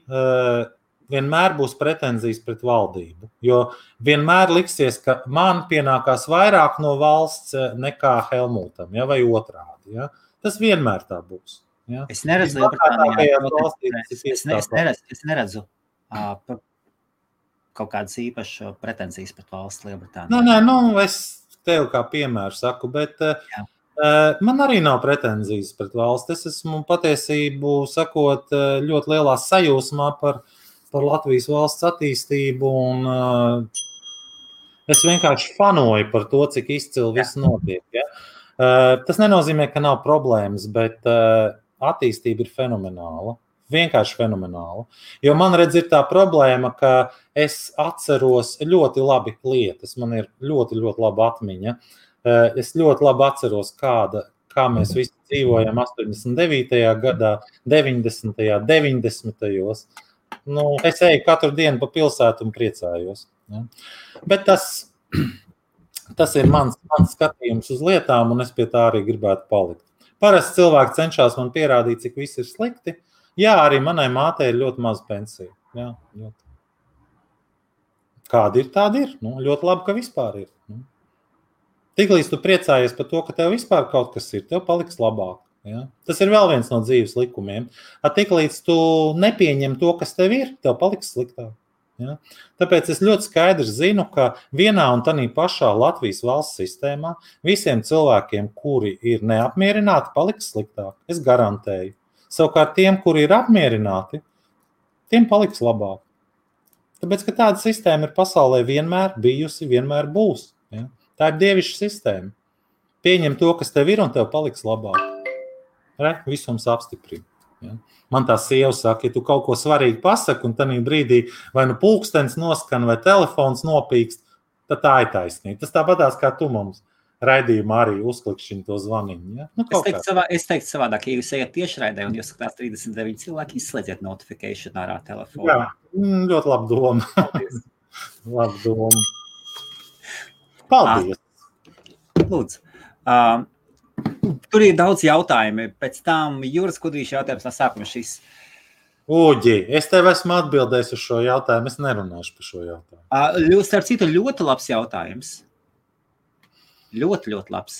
vienmēr būs pretenzijas pret valdību, jo vienmēr liksies, ka man pienākās vairāk no valsts nekā Helmutam, ja, vai otrādi. Ja. Tas vienmēr tā būs. Ja. Es neredzu kaut kādas īpašas pretenzijas pret valsts Lielbritāniju. Nē, es tev kā piemēru saku, bet man arī nav pretenzijas pret valsts. Es esmu patiesību sakot ļoti lielā sajūsmā par Latvijas valsts attīstību, un es vienkārši fanoju par to, cik izcili viss notiek. Ja? Tas nenozīmē, ka nav problēmas, bet attīstība ir fenomenāla. Vienkārši fenomenāla. Jo man redz ir tā problēma, ka es atceros ļoti labi lietas. Man ir ļoti, ļoti laba atmiņa. Es ļoti labi atceros, kā mēs visi dzīvojam 89. gadā, 90. 90. Es eju katru dienu pa pilsētu un priecājos. Ja? Bet tas ir mans skatījums uz lietām, un es pie tā arī gribētu palikt. Parasti cilvēki cenšas man pierādīt, cik viss ir slikti. Jā, arī manai mātei ir ļoti maz pensija. Jā, ļoti. Kāda ir, tāda ir. Ļoti labi, ka vispār ir. Tiklīdz tu priecājies par to, ka tev vispār kaut kas ir, tev paliks labāk. Ja? Tas ir vēl viens no dzīves likumiem. Tiklīdz tu nepieņem to, kas tev ir, tev paliks sliktāk. Ja? Tāpēc es ļoti skaidrs zinu, ka vienā un tādā pašā Latvijas valsts sistēmā visiem cilvēkiem, kuri ir neapmierināti, paliks sliktāk. Es garantēju. Savukārt tiem, kuri ir apmierināti, tiem paliks labāk. Tāpēc, ka tāda sistēma ir pasaulē vienmēr bijusi, vienmēr būs. Ja? Tā ir dievišķa sistēma. Pieņem to, kas tev ir, un tev paliks labāk. Visums apstiprina. Ja? Man tā sieva saka, ja tu kaut ko svarīgi pasaki, un tādā brīdī vai pulkstens noskan, vai telefons nopīkst, tad tā ir taisnība. Tas tāpatās, kā tu mums raidījumā arī uzklikšķini to zvaniņu. Ja? Es teiktu savādāk, ja jūs ejat tiešraidē un jūs skatās 39 cilvēki, izslēdziet notification ārā telefonu. Jā, ļoti laba doma. Laba doma. Paldies. Lūdzu. Tur ir daudz jautājumi. Pēc tam Jūras Kudrīša jautājums no sākuma šis. Uģi, es tev esmu atbildējis uz šo jautājumu. Es nerunāšu par šo jautājumu. Starp citu, ļoti labs jautājums. Ļoti, ļoti labs.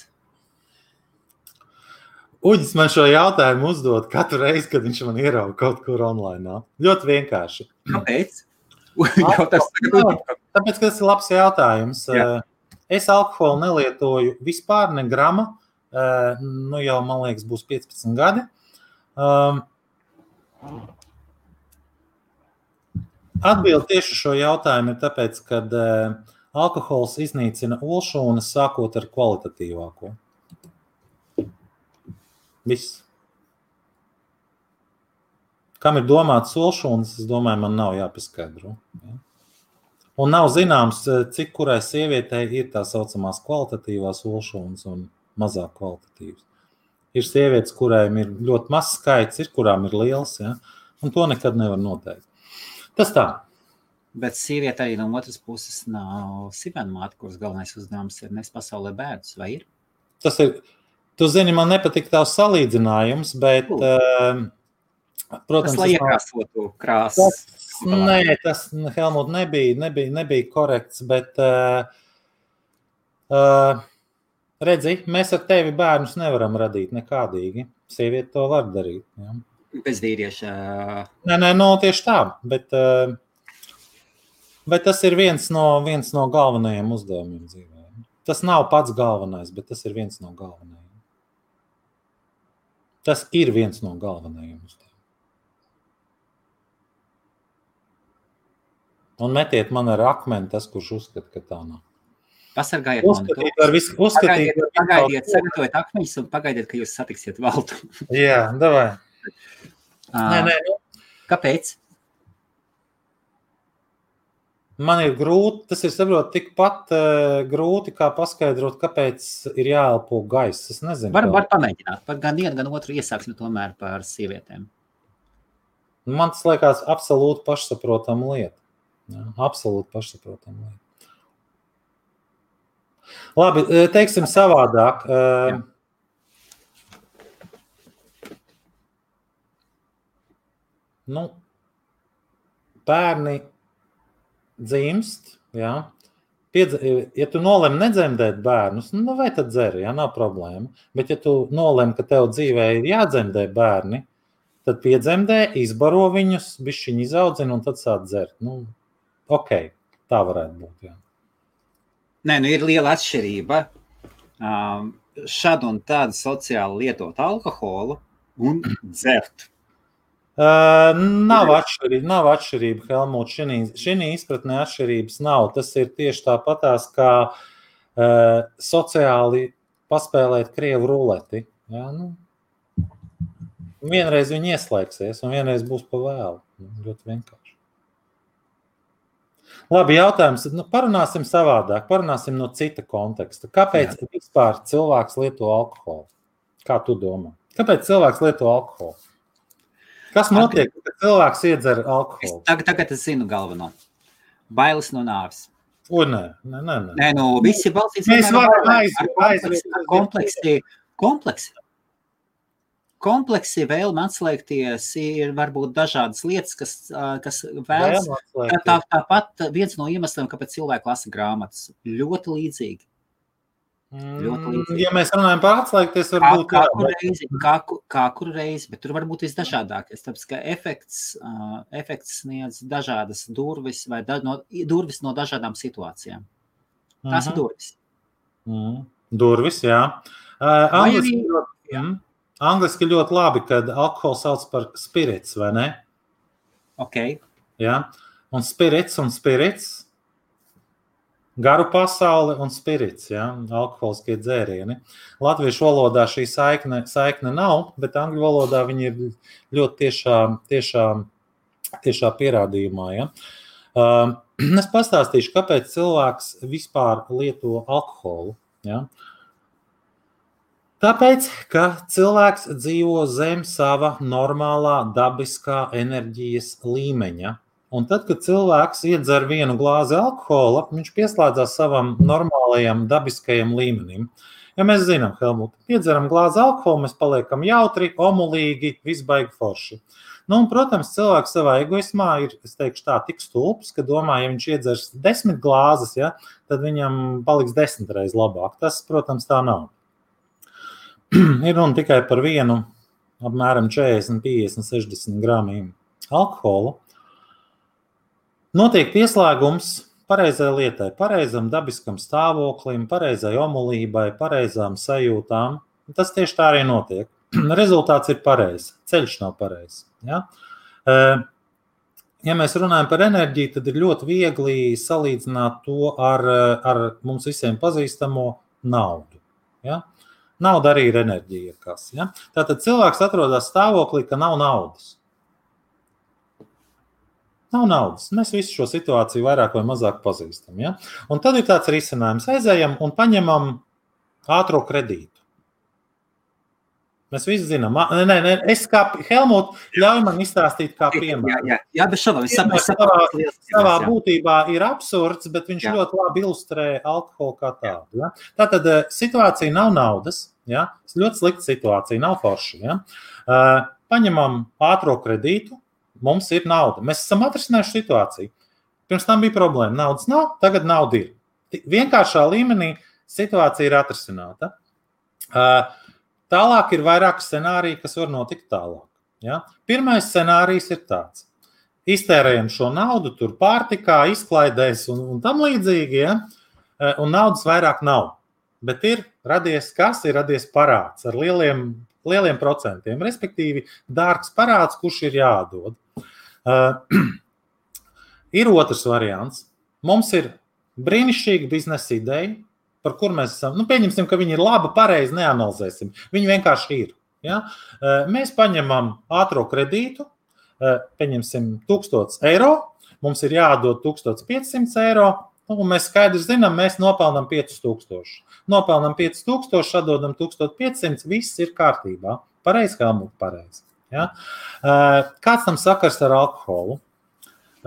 Uģis man šo jautājumu uzdod katru reizi, kad viņš man ierauga kaut kur online. Ļoti vienkārši. Kāpēc? Tāpēc, ka tas ir labs jautājums. Jā. Es alkoholu nelietoju vispār ne grama. Jau, man liekas, būs 15 gadi. Atbilde tieši šo jautājumu ir tāpēc, ka alkohols iznīcina olšūnas sākot ar kvalitatīvāko. Viss. Kam ir domāts olšūnas, es domāju, man nav jāpaskaidro. Ja? Un nav zināms, cik kurai sievietei ir tā saucamās kvalitatīvās olšūnas un mazāk kvalitatīvas. Ir sievietes, kurām ir ļoti mazs skaits, ir kurām ir liels, ja? Un to nekad nevar noteikt. Tas tā. Bet sieviete arī no otras puses nav sivenmāte, kuras galvenais uzdevums ir nes pasaulē bērnus, vai ir? Tas ir, tu zini, man nepatīk tavs salīdzinājums, bet, protams, tas lai iekrāsotu krāsas. Nē, tas, Helmut, nebija korekts, bet redzi, mēs ar tevi bērnus nevaram radīt nekādīgi. Sieviete to var darīt. Ja. Bez vīrieša. Nē, tieši tā, bet tas ir viens no galvenajiem uzdevumiem dzīvē. Tas nav pats galvenais, bet tas ir viens no galvenajiem. Tas ir viens no galvenajiem uzdevumiem. Un metiet man ar akmeni tas, kurš uzskata, ka tā nav. Pasargājiet mani to. Pagaidiet, sagatavojiet akmeņus un pagaidiet, ka jūs satiksiet valdu. Jā, davai. Nē. Kāpēc? Man ir grūti, tas ir saprot tikpat grūti, kā paskaidrot, kāpēc ir jāelpo gaiss. Es nezinu. Var pamēģināt. Par gan vienu, gan otru iesāksim tomēr par sievietēm. Man tas liekas absolūti pašsaprotama lieta. Jā, absolūti pašsaprotama lieta. Labi, teiksim savādāk. Bērni dzimst, jā. Ja tu nolem nedzemdēt bērnus, vai tad dzeri, jā, nav problēma. Bet ja tu nolem, ka tev dzīvē ir jādzemdē bērni, tad piedzemdē, izbaro viņus, bišķiņi izaudzina un tad sāk dzert. Ok, tā varētu būt, jā. Nē, ir liela atšķirība šad un tādu sociāli lietot alkoholu un dzert. Nav atšķirība, Helmut. Šī izpratnē atšķirības nav. Tas ir tieši tāpatās, kā sociāli paspēlēt krievu ruleti. Jā, vienreiz viņi ieslēgsies un vienreiz būs pa vēlu. Ļoti vienkārši. Labi, jautājums. Parunāsim savādāk. Parunāsim no cita konteksta. Kāpēc vispār cilvēks lieto alkoholu? Kā tu domā? Kāpēc cilvēks lieto alkoholu? Kas notiek, kad cilvēks iedzer alkoholu? Tagad es zinu galveno. Bailes no nāves. Nē. Nē, visi balsīs. Mēs varam aiziet. Kompleksi vēlme atslēgties ir varbūt dažādas lietas, kas vēlas. Tāpat viens no iemesliem, kāpēc cilvēki lasa grāmatas. Ļoti līdzīgi. Ja mēs runājam par atslēgties, varbūt kā kuru reizi, bet tur var būt visdažādākais, tāpēc, ka efekts sniedz dažādas durvis vai durvis no dažādām situācijām. Tās ir durvis. Durvis, jā. Angliski ļoti labi, kad alkohols sauc par spirits, vai ne? Ok. Jā. Un spirits, garu pasauli un spirits, jā, alkoholiskie dzērieni. Latviešu valodā šī saikne nav, bet angļu valodā viņi ir ļoti tiešā pierādījumā. Ja? Es pastāstīšu, kāpēc cilvēks vispār lieto alkoholu. Ja? Tāpēc, ka cilvēks dzīvo zem sava normālā dabiskā enerģijas līmeņa. Un tad, kad cilvēks iedzer vienu glāzi alkohola, viņš pieslēdzās savam normālajam dabiskajam līmenim. Ja mēs zinām, Helmut, iedzeram glāzi alkohola, mēs paliekam jautri, omulīgi, visbaigi forši. Un, protams, cilvēks savā egoismā ir, es teikšu tā, tik stulbs, ka domā, ja viņš iedzers 10 glāzes, ja, tad viņam paliks 10 reiz labāk. Tas, protams, tā nav. Ir runa tikai par vienu, apmēram 40, 50, 60 gramiem alkoholu. Notiek pieslēgums pareizai lietai, pareizam dabiskam stāvoklim, pareizai omulībai, pareizām sajūtām. Tas tieši tā arī notiek. Rezultāts ir pareizs, ceļš nav pareizs. Ja? Ja mēs runājam par enerģiju, tad ir ļoti viegli salīdzināt to ar mums visiem pazīstamo naudu. Ja? Nauda arī ir enerģija. Ja? Tātad cilvēks atrodas stāvoklī, ka nav naudas. Nav naudas. Mēs visu šo situāciju vairāk vai mazāk pazīstam. Ja? Un tad ir tāds risinājums. Aizējam un paņemam ātro kredītu. Mēs visi zinām. Es kā Helmut, ļauj man izstāstīt kā piemēru. Jā, bet savā būtībā ir absurds, bet viņš ļoti labi ilustrē alkoholu kā tādu. Ja? Tātad situācija nav naudas. Ja? Ļoti slikta situācija, nav forša. Ja? Paņemam ātro kredītu, mums ir nauda. Mēs esam atrisinājuši situāciju. Pirms tam bija problēma. Naudas nav, tagad nauda ir. Vienkāršā līmenī situācija ir atrisināta. Tālāk ir vairāk scenāriju, kas var notikt tālāk. Ja? Pirmais scenārijs ir tāds. Iztērējam šo naudu, tur pārtikā, izklaidēs un tam līdzīgi, ja? Un naudas vairāk nav. Bet ir radies parāds ar lieliem procentiem, respektīvi dārgs parāds, kurš ir jāatdod. Ir otrs variants. Mums ir brīnišķīga biznesa ideja, par kur mēs esam, pieņemsim, ka viņi ir laba, pareizi, neanalizēsim. Viņi vienkārši ir. Ja? Mēs paņemam ātro kredītu, pieņemsim 1000 eiro, mums ir jāatdod 1500 eiro, un mēs skaidri zinām, mēs nopelnam 5000. Nopelnam 5000, atdodam 1500, viss ir kārtībā. Pareizi, Helmut, pareizi. Ja? Kāds tam sakars ar alkoholu?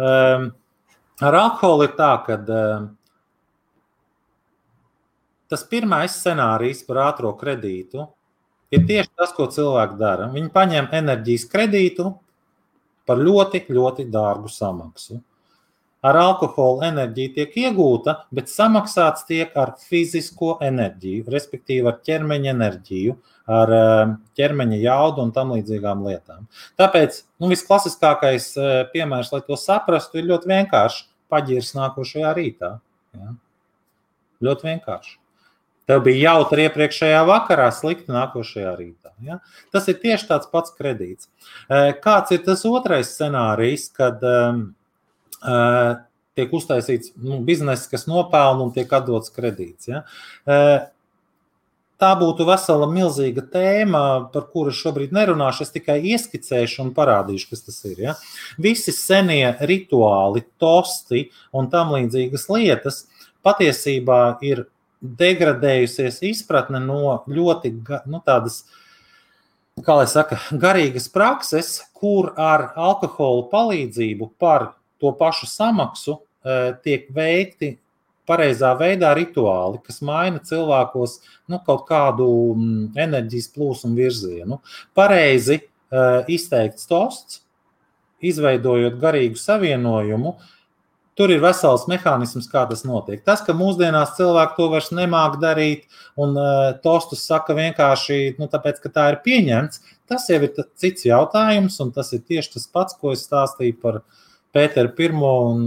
Ar alkoholu ir tā, ka tas pirmais scenārijs par ātro kredītu ir tieši tas, ko cilvēki dara. Viņi paņem enerģijas kredītu par ļoti, ļoti dārgu samaksu. Ar alkoholu enerģija tiek iegūta, bet samaksāts tiek ar fizisko enerģiju, respektīvi ar ķermeņa enerģiju, ar ķermeņa jaudu un tam līdzīgām lietām. Tāpēc visklasiskākais piemērs, lai to saprastu, ir ļoti vienkārši paģirs nākošajā rītā. Ja? Ļoti vienkārši. Tev bija jautri iepriekšējā vakarā, slikti nākošajā rītā. Ja? Tas ir tieši tāds pats kredīts. Kāds ir tas otrais scenārijs, kad tiek uztaisīts bizness, kas nopelna un tiek atdots kredīts? Ja? Tā būtu vesela milzīga tēma, par kuru šobrīd nerunāšu, es tikai ieskicēšu un parādīšu, kas tas ir. Ja? Visi senie rituāli, tosti un tam līdzīgas lietas patiesībā ir degradējusies izpratne no ļoti tādas, kā lai saka, garīgas prakses, kur ar alkoholu palīdzību par to pašu samaksu tiek veikti pareizā veidā rituāli, kas maina cilvēkos kaut kādu enerģijas plūsmu virzienu. Pareizi izteikts tosts, izveidojot garīgu savienojumu, tur ir vesels mehānisms, kā tas notiek. Tas, ka mūsdienās cilvēki to vairs nemāk darīt un tostus saka vienkārši, tāpēc, ka tā ir pieņemts, tas jau ir cits jautājums, un tas ir tieši tas pats, ko es stāstīju par Pēteru I un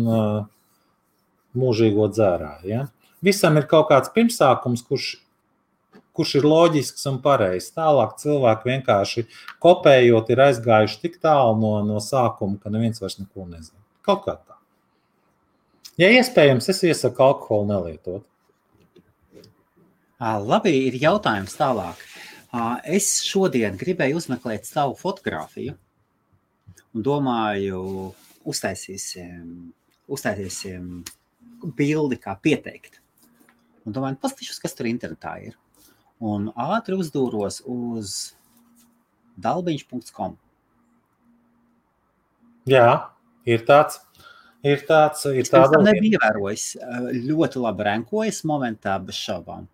mūžīgo dzērāju. Ja? Visam ir kaut kāds pirmsākums, kurš ir loģisks un pareizs. Tālāk cilvēki vienkārši kopējot ir aizgājuši tik tālu no sākuma, ka neviens vairs neko nezina. Kaut kā tā. Ja iespējams, es iesaku alkoholu nelietot. Labi, ir jautājums tālāk. Es šodien gribēju uzmeklēt savu fotogrāfiju un domāju, uztaisīsim bildi, kā pieteikt. Un domāju, paskatīšos, kas tur internetā ir. Un ātri uzdūros uz dalbiņš.com. Jā, ir tāds. Ir tāda nebija ievērojis. Ļoti labi renkojas momentā bez šaubām.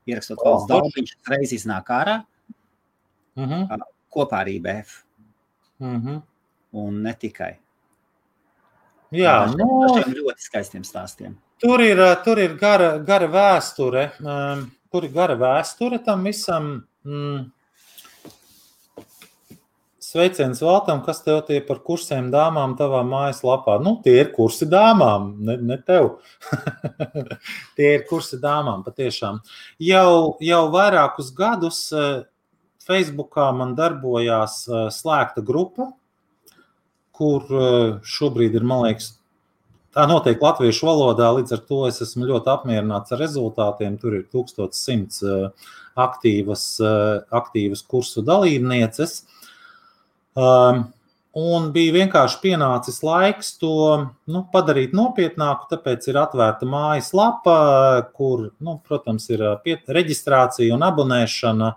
Ierakstot valsts dalbiņš, reiz iznāk ārā, kopā ar IBF. Un ne tikai. Jā, ļoti skaistiem stāstiem. Tur ir gara vēsture. Tur ir gara vēsture tam visam. Sveiciens Valtam, kas tev tie par kursiem dāmām tavā mājaslapā? Tie ir kursi dāmām, ne tev. Tie ir kursi dāmām, patiešām. Jau vairākus gadus Facebookā man darbojās slēgta grupa, kur šobrīd ir, man liekas, tā notiek latviešu valodā, līdz ar to es esmu ļoti apmierināts ar rezultātiem. Tur ir 1100 aktīvas kursu dalībnieces. Un bija vienkārši pienācis laiks to padarīt nopietnāku, tāpēc ir atvērta mājaslapa, kur, protams, ir reģistrācija un abonēšana,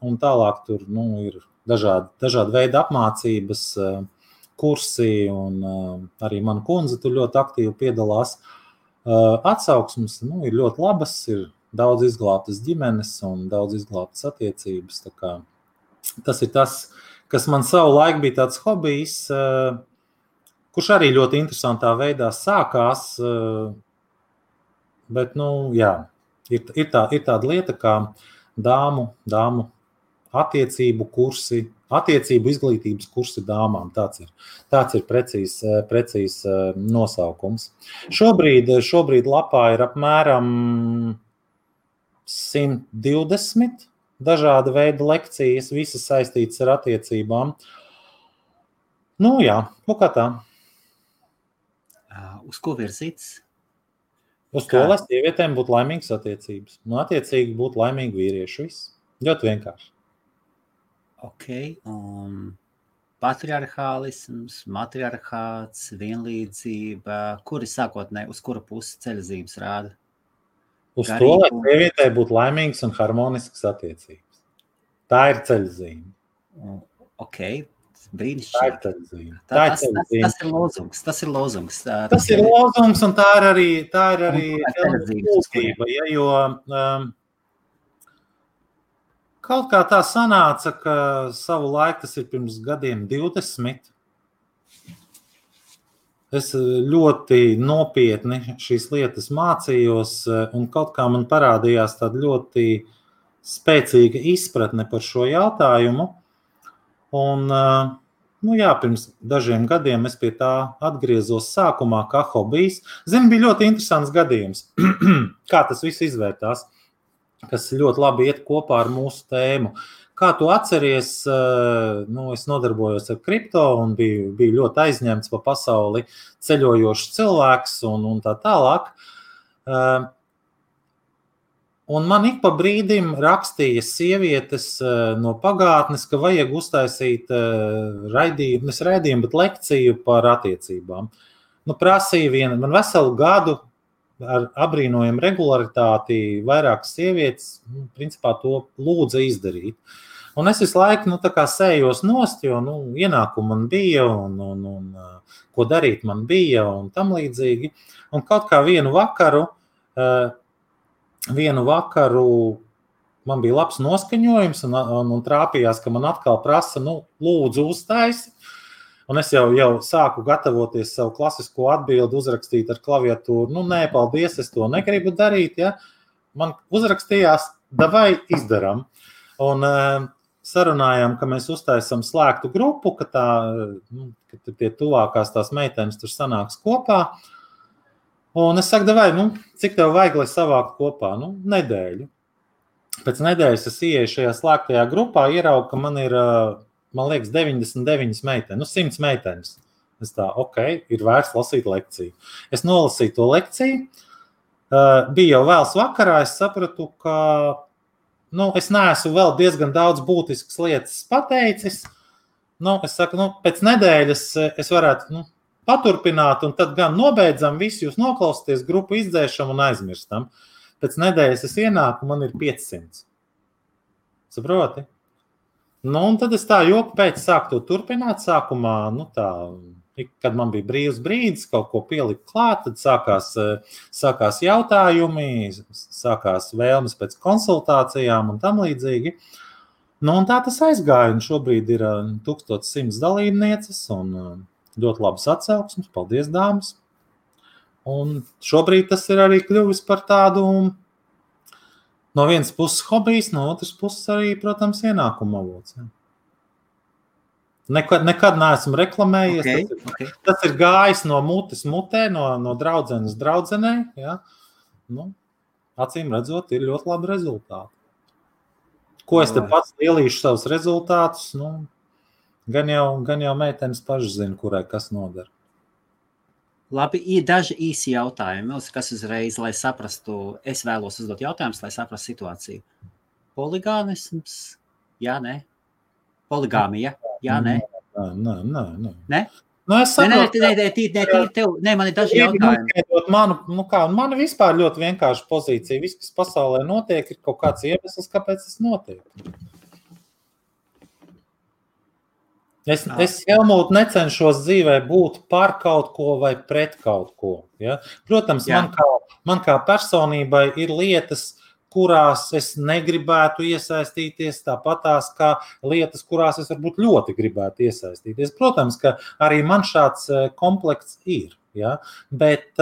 un tālāk tur ir dažādi veidi apmācības, kursi, un arī mana kundze tur ļoti aktīvi piedalās. Atsauksmes ir ļoti labas, ir daudz izglābtas ģimenes un daudz izglābtas attiecības. Tā kā tas ir tas, kas man savu laiku bija tāds hobijs, kurš arī ļoti interesantā veidā sākās, bet, jā, ir tāda lieta kā dāmu attiecību kursi, attiecību izglītības kursi dāmām. Tāds ir precīzs nosaukums. Šobrīd lapā ir apmēram 120 dažāda veida lekcijas, visas saistītas ar attiecībām. Nu jā, kā tā. Uz ko virzīts? Uz to, lai sievietēm būtu laimīgas attiecības. Nu, attiecīgi būtu laimīgi vīrieši. Viss. Ļoti vienkārši. Ok, patriarchālisms, matriarchāts, vienlīdzība, kuri sākotnēji, uz kura pusi ceļzīmes rāda? Uz to, lai sievietē būtu laimīgas un harmoniskas attiecības. Tā ir ceļzīme. Ok, brīnišķīgi. Tas ir lozungs. Tas ir lozungs, un tā ir arī būtība, jo kaut kā tā sanāca, ka savu laiku, tas ir pirms gadiem 20, es ļoti nopietni šīs lietas mācījos, un kaut kā man parādījās tāda ļoti spēcīga izpratne par šo jautājumu. Un, pirms dažiem gadiem es pie tā atgriezos sākumā kā hobijs. Bija ļoti interesants gadījums, kā tas viss izvērtās, kas ļoti labi iet kopā ar mūsu tēmu. Kā tu atceries, es nodarbojos ar kripto un biju ļoti aizņemts pa pasauli ceļojošs cilvēks un tā tālāk. Un man ik pa brīdim rakstīja sievietes no pagātnes, ka vajag uztaisīt raidījumu, bet lekciju par attiecībām. Prasīja man veselu gadu ar abrīnojumu regularitāti vairākas sievietes, principā to lūdza izdarīt. Un es visu laiku sējos nost, jo ienākumu man bija un ko darīt man bija un tam līdzīgi. Un kaut kā vienu vakaru man bija labs noskaņojums un trāpījās, ka man atkal prasa, lūdzu uztaisi. Un es jau sāku gatavoties savu klasisko atbildi uzrakstīt ar klaviatūru. Nē, paldies, es to negribu darīt. Ja? Man uzrakstījās, davai izdaram. Un sarunājām, ka mēs uztaisam slēgtu grupu, ka tie tuvākās tās meitenes tur sanāks kopā. Un es saku, davai, cik tev vajag, lai savākt kopā? Nedēļu. Pēc nedēļas es ieeju šajā slēgtajā grupā, ieraugu, ka man ir, man liekas, 99 meitenes, 100 meitenes. Es tā, ir vērts lasīt lekciju. Es nolasīju to lekciju. Bija jau vēls vakarā, es sapratu, ka es neesmu vēl diezgan daudz būtiskas lietas pateicis. Es saku, pēc nedēļas es varētu paturpināt, un tad gan nobeidzam visu, jūs noklausieties, grupu izdzēšam un aizmirstam. Pēc nedēļas es ienāku, man ir 500. Saproti? Un tad es tā joku pēc sāku to turpināt. Sākumā, kad man bija brīvs brīdis, kaut ko pielikt klāt, tad sākās jautājumi, sākās vēlmes pēc konsultācijām un tam līdzīgi. Un tā tas aizgāja, un šobrīd ir 1100 dalībnieces un ļoti labas atsauksmes. Paldies, dāmas! Un šobrīd tas ir arī kļuvis par tādu no vienas puses hobijs, no otras puses arī, protams, ienākuma avots. Ja. Nekad neesmu reklamējies. Tas ir gājis no mutes mutē, no draudzenes draudzenē. Ja. Acīm redzot, ir ļoti labi rezultāti. Ko es te pats lielīšu savus rezultātus? Gan jau meitenes paši zina, kurai kas nodara. Labi, ir daži īsi jautājumi, kas uzreiz, lai saprastu, es vēlos uzdot jautājumus, lai saprastu situāciju. Poligāmisms? Jā, nē. Poligāmija? Jā, nē. Nē? Es saprotu. Nē, man ir daži jautājumi. Man vispār ļoti vienkārša pozīcija. Viss, kas pasaulē notiek, ir kaut kāds iemesls, kāpēc tas notiek. Es Helmūt, necenšos dzīvē būt par kaut ko vai pret kaut ko. Ja? Protams, man kā personībai ir lietas, kurās es negribētu iesaistīties, tāpatās kā lietas, kurās es varbūt ļoti gribētu iesaistīties. Protams, ka arī man šāds komplekts ir. Ja? Bet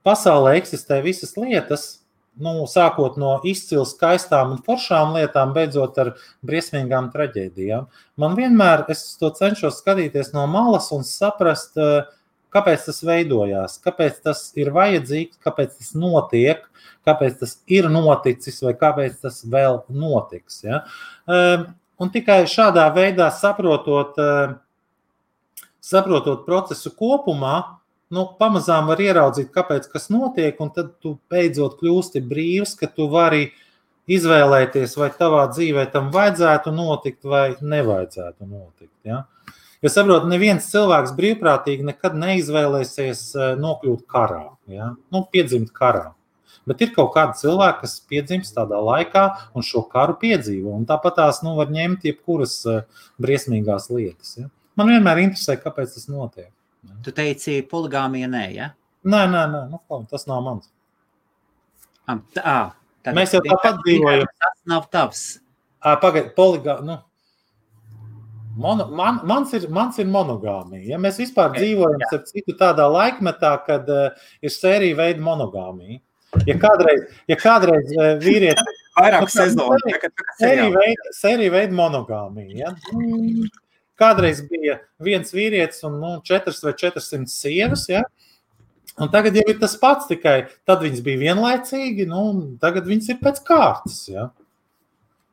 pasaulē eksistē visas lietas, sākot no izcili skaistām un foršām lietām, beidzot ar briesmīgām traģēdijām. Man vienmēr, es to cenšos skatīties no malas un saprast, kāpēc tas veidojās, kāpēc tas ir vajadzīgs, kāpēc tas notiek, kāpēc tas ir noticis vai kāpēc tas vēl notiks. Ja? Un tikai šādā veidā saprotot procesu kopumā, pamazām var ieraudzīt, kāpēc kas notiek, un tad tu beidzot kļūsti brīvs, ka tu vari izvēlēties, vai tavā dzīvē tam vajadzētu notikt vai nevajadzētu notikt. Ja? Jo saprot, neviens cilvēks brīvprātīgi nekad neizvēlēsies nokļūt karā, ja? Piedzimt karā. Bet ir kaut kādi cilvēki, kas piedzimst tādā laikā un šo karu piedzīvo, un tāpat tās var ņemt jebkuras briesmīgās lietas. Ja? Man vienmēr interesē, kāpēc tas notiek. Tu teici, poligāmija nē, ja? Nē, tas nav mans. Mēs jau tāpat dzīvojam. Tas nav tavs. Pagaid, poligāmija, mans ir monogāmija. Ja? Mēs vispār dzīvojam starp citu tādā laikmetā, kad ir sērija veida monogāmija. Ja kādreiz vīrieti... Vairāk sezonu. Sērija veida monogāmija, ja? Kādreiz bija viens vīrietis un 4 vai 400 sievas, ja? Un tagad jau ir tas pats, tikai tad viņas bija vienlaicīgi, tagad viņas ir pēc kārtas. Ja?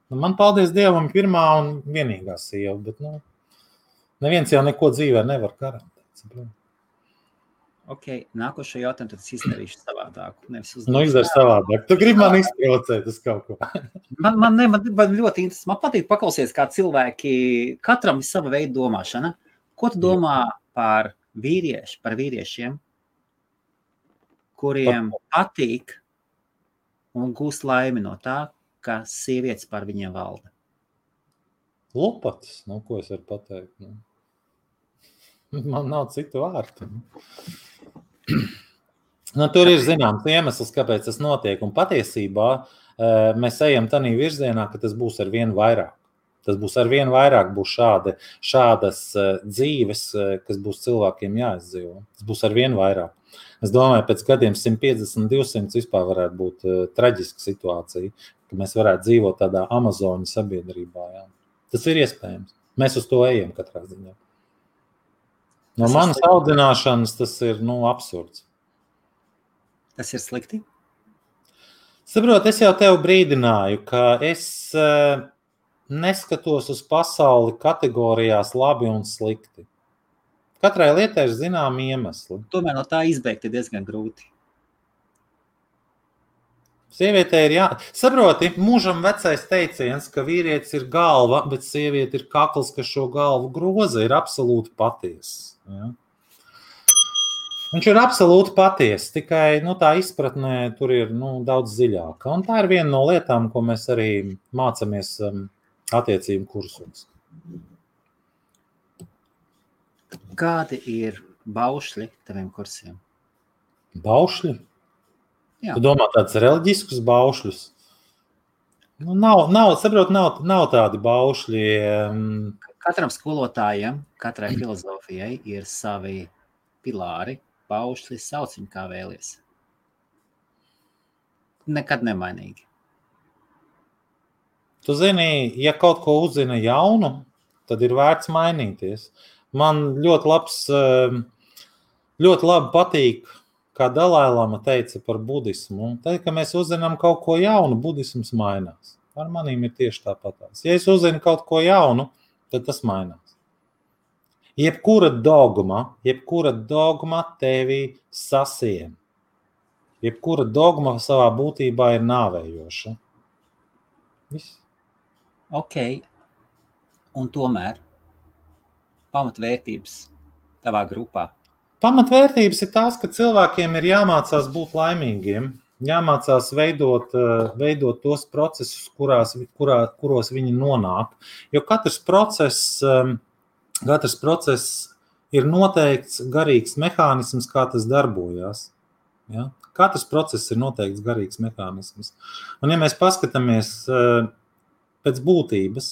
Man, paldies Dievam, pirmā un vienīgā sieva, bet neviens jau neko dzīvē nevar garantēt. Ok, nākošo jautājumu tad es izdarīšu savādāku. Izdari savādāk. Tu gribi man izprovocēt uz kaut ko. Man ļoti interesanti. Man patīk paklausīties, kā cilvēki, katram ir sava veida domāšana. Ko tu domā par vīriešiem, kuriem patīk un gūst laimi no tā, ka sievietes par viņiem valda? Lopatas, ko es varu pateikt? Man nav citu vārtu. Tur ir zināms iemesls, kāpēc tas notiek, un patiesībā mēs ejam tādā virzienā, ka tas būs ar vien vairāk. Tas būs ar vien vairāk, būs šādas dzīves, kas būs cilvēkiem jāizdzīvo. Tas būs ar vien vairāk. Es domāju, pēc gadiem 150, 200 vispār varētu būt traģiska situācija, ka mēs varētu dzīvot tādā Amazoņu sabiedrībā. Jā. Tas ir iespējams. Mēs uz to ejam katrā ziņā. No manas audzināšanas tas ir absurds. Tas ir slikti? Saprot, es jau tev brīdināju, ka es neskatos uz pasauli kategorijās labi un slikti. Katrai lietai ir zināmi iemesli. Tomēr no tā izbeigt ir diezgan grūti. Sievietē ir Saproti, mūžam vecais teiciens, ka vīrietis ir galva, bet sieviete ir kakls, kas šo galvu groza, ir absolūti patiess. Ja? Viņš ir absolūti patiess, tikai tā izpratnē tur ir daudz dziļāka. Un tā ir viena no lietām, ko mēs arī mācāmies attiecību kursos. Kādi ir baušļi taviem kursiem? Baušļi? Jā. Tu domā tādus reliģiskus baušļus? Nav tādi baušļi. Katram skolotājam, katrai filozofijai ir savi pilāri, baušļi, sauc viņu kā vēlies. Nekad nemainīgi. Tu zini, ja kaut ko uzzina jaunu, tad ir vērts mainīties. Man ļoti labi patīk, kā Dalai-lama teica par budismu. Tad, ka mēs uzzinām kaut ko jaunu, budisms mainās. Ar manīm ir tieši tāpatās. Ja es uzzinu kaut ko jaunu, tad tas mainās. Jebkura dogma tevi sasien. Jebkura dogma savā būtībā ir nāvējoša. Viss. Ok. Un tomēr pamatvērtības tavā grupā? Pamatvērtības ir tās, ka cilvēkiem ir jāmācās būt laimīgiem, jāmācās veidot tos procesus, kuros viņi nonāk. Jo katrs process ir noteikts garīgs mehānisms, kā tas darbojās. Ja? Katrs process ir noteikts garīgs mehānisms. Un ja mēs paskatāmies pēc būtības,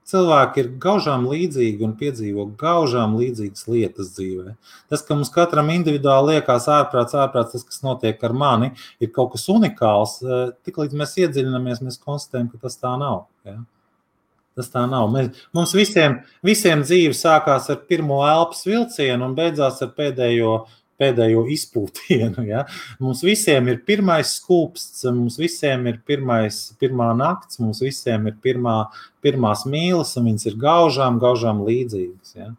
cilvēki ir gaužām līdzīgi un piedzīvo gaužām līdzīgas lietas dzīvē. Tas, ka mums katram individuāli liekas ārprāts, tas, kas notiek ar mani, ir kaut kas unikāls. Tiklīdz mēs iedziļinamies, mēs konstatējam, ka tas tā nav. Ja? Tas tā nav. Mums visiem dzīve sākās ar pirmo elpas vilcienu un beidzās ar pēdējo izpūtienu. Ja? Mums visiem ir pirmais skūpsts, mums visiem ir pirmā nakts, mums visiem ir pirmās mīlas, un viņas ir gaužām līdzīgas. Ja?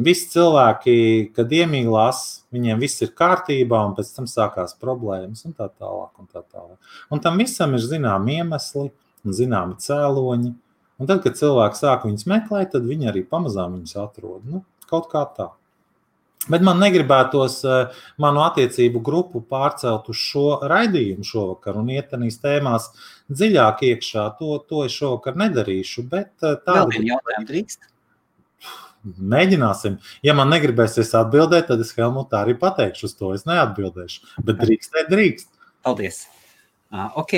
Visi cilvēki, kad iemīlās, viņiem viss ir kārtībā, un pēc tam sākās problēmas, un tā tālāk. Un tam visam ir zināmi iemesli un zināmi cēloņi. Un tad, kad cilvēki sāk viņus meklēt, tad viņi arī pamazām viņus atrod. Kaut kā tā. Bet man negribētos manu attiecību grupu pārcelt uz šo raidījumu šovakar un iet tanīs tēmās dziļāk iekšā. To es šovakar nedarīšu, bet Vēl vienu jautājumu drīkst? Mēģināsim. Ja man negribēsies atbildēt, tad es Helmutā arī pateikšu uz to. Es neatbildēšu, bet drīkst. Paldies. Ok.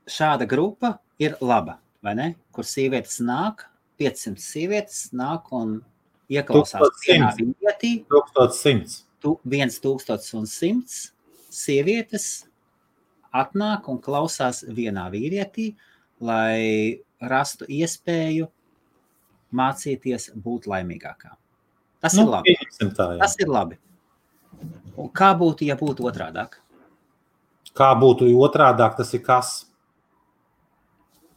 Šāda grupa ir laba, vai ne? Kur sievietes nāk, 500 sievietes nāk un ieklausās vienā vīrietī. 1100 sievietes atnāk un klausās vienā vīrietī, lai rastu iespēju mācīties būt laimīgākā. Tas ir labi. Tas ir labi. Un kā būtu, ja būtu otrādāk? Kā būtu otrādāk, tas ir kas?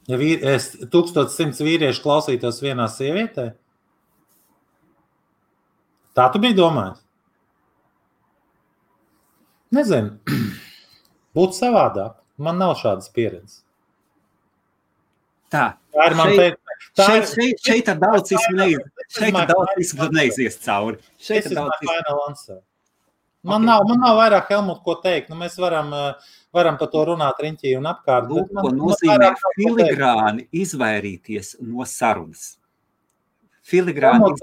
Ja 1100 vīrieši klausītos vienā sievietē? Tā tu biji domājis? Nezinu. Būtu savādāk. Man nav šādas pieredzes. Tā ir man šeit ar daudzismu neizies cauri. Man nav vairāk, Helmut, ko teikt. Mēs varam par to runāt riņķī un apkārt. Lūk, ko nozīmē filigrāni izvairīties no sarunas. Helmut,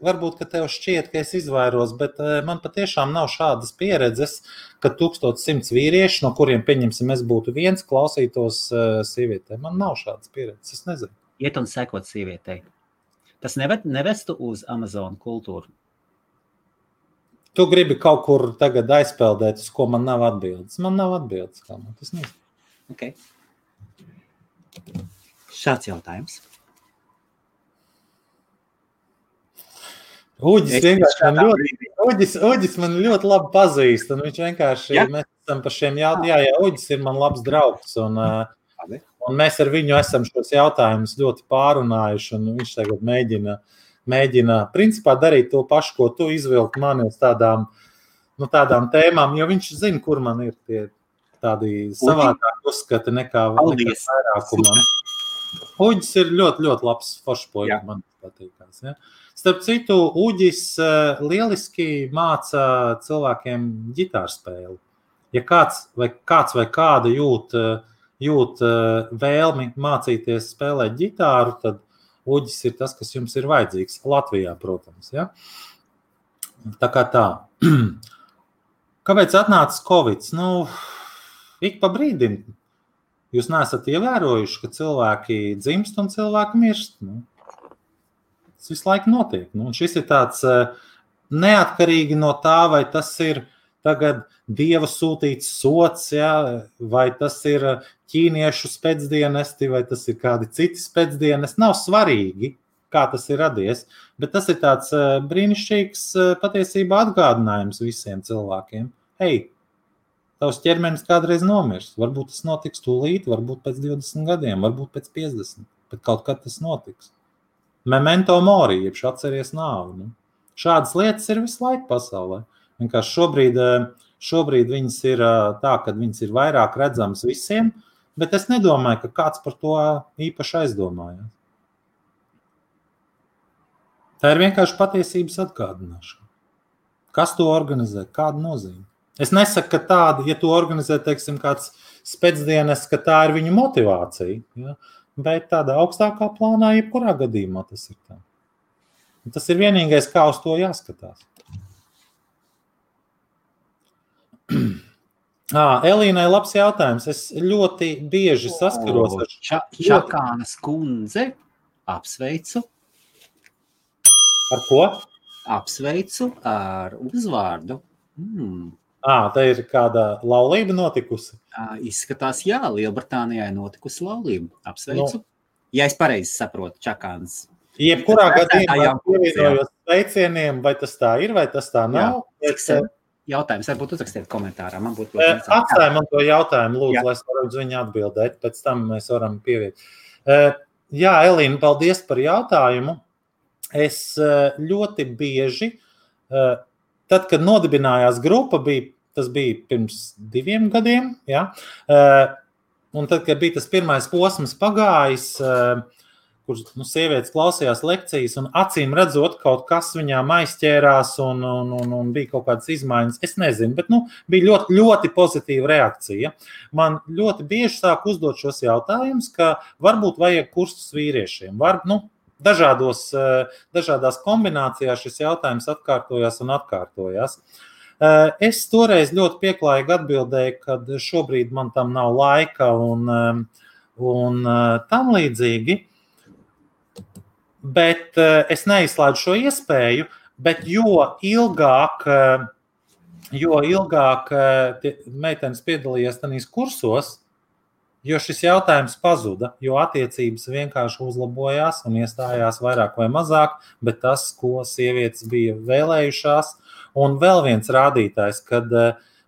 varbūt, ka tev šķiet, ka es izvairos, bet man patiešām nav šādas pieredzes, ka 1100 vīrieši, no kuriem, pieņemsim, es būtu viens, klausītos sievietē. Man nav šādas pieredzes, es nezinu. Iet un sekot sievietei. Tas nevestu uz Amazon kultūru. Tu gribi kaut kur tagad aizpeldēt, uz ko man nav atbildes. Man nav atbildes, kā man tas nezinu. Ok. Šāds jautājums. Uģis man ļoti labi pazīst, un viņš vienkārši, mēs esam par šiem jautājumiem, Uģis ir man labs draugs, un mēs ar viņu esam šos jautājumus ļoti pārunājuši, un viņš tagad mēģina principā darīt to pašu, ko tu izvilkt mani uz tādām tēmām, jo viņš zina, kur man ir tie tādi savādāk uzskati nekā vairākumam. Uģis ir ļoti, ļoti labs foršpoļs, man patīkās. Ja? Starp citu, Uģis lieliski māca cilvēkiem ģitārspēli. Ja kāds vai kāda jūt vēlmi mācīties spēlēt ģitāru, tad Uģis ir tas, kas jums ir vajadzīgs. Latvijā, protams. Ja? Tā kā tā. Kāpēc atnācis Covid? Ik pa brīdim. Jūs neesat ievērojuši, ka cilvēki dzimst un cilvēki mirst. Tas visu laiku notiek. Un šis ir tāds neatkarīgi no tā, vai tas ir tagad Dieva sūtīts sots, ja? Vai tas ir ķīniešu spēcdienesti, vai tas ir kādi citi spēcdienesti. Nav svarīgi, kā tas ir radies, bet tas ir tāds brīnišķīgs patiesībā atgādinājums visiem cilvēkiem. Hei, tavs ķermenis kādreiz nomirs. Varbūt tas notiks tūlīt, varbūt pēc 20 gadiem, varbūt pēc 50, bet kaut kad tas notiks. Memento mori, jeb atceries nāvi. Šādas lietas ir visu laiku pasaulē. Vienkārši šobrīd viņas ir tā, ka viņas ir vairāk redzamas visiem, bet es nedomāju, ka kāds par to īpaši aizdomājās. Tā ir vienkārši patiesības atgādināšana. Kas to organizē? Kāda nozīme? Es nesaku, ka tāda, ja to organizē, teiksim, kāds spēcdienas, ka tā ir viņa motivācija, ja? Bet tādā augstākā plānā, jebkurā gadījumā tas ir tā. Tas ir vienīgais, kā uz to jāskatās. Elīnai labs jautājums. Es ļoti bieži saskaros ar Čakānas kundze. Apsveicu. Ar ko? Apsveicu ar uzvārdu. Tā ir kāda laulība notikusi? Izskatās, jā, Lielbritānijā notikusi laulība. Apsveicu. Ja es pareizi saprotu, Čakānas. Jebkurā gadījumā pievienojos sveicieniem, vai tas tā ir, vai tas tā nav. Jautājums, varbūt uzrakstiet komentārā. Atstāj man to jautājumu, lūdzu, lai es varu uz viņu atbildēt. Pēc tam mēs varam pieviet. Jā, Elīna, paldies par jautājumu. Es ļoti bieži, tad, kad nodibinājās grupa, tas bija pirms 2 gadiem, ja? Un tad, kad bija tas pirmais posms pagājis, kur sievietes klausījās lekcijas un acīm redzot, kaut kas viņām aizķērās un bija kaut kādas izmaiņas. Es nezinu, bet bija ļoti, ļoti pozitīva reakcija. Man ļoti bieži sāk uzdot šos jautājumus, ka varbūt vajag kursus vīriešiem. Dažādās kombinācijās šis jautājums atkārtojās un atkārtojās. Es toreiz ļoti pieklājīgi atbildēju, ka šobrīd man tam nav laika un tam līdzīgi. Bet es neizslēdzu šo iespēju, bet jo ilgāk meitenes piedalījās tajos kursos, jo šis jautājums pazuda, jo attiecības vienkārši uzlabojās un iestājās vairāk vai mazāk, bet tas, ko sievietes bija vēlējušās. Un vēl viens rādītājs, kad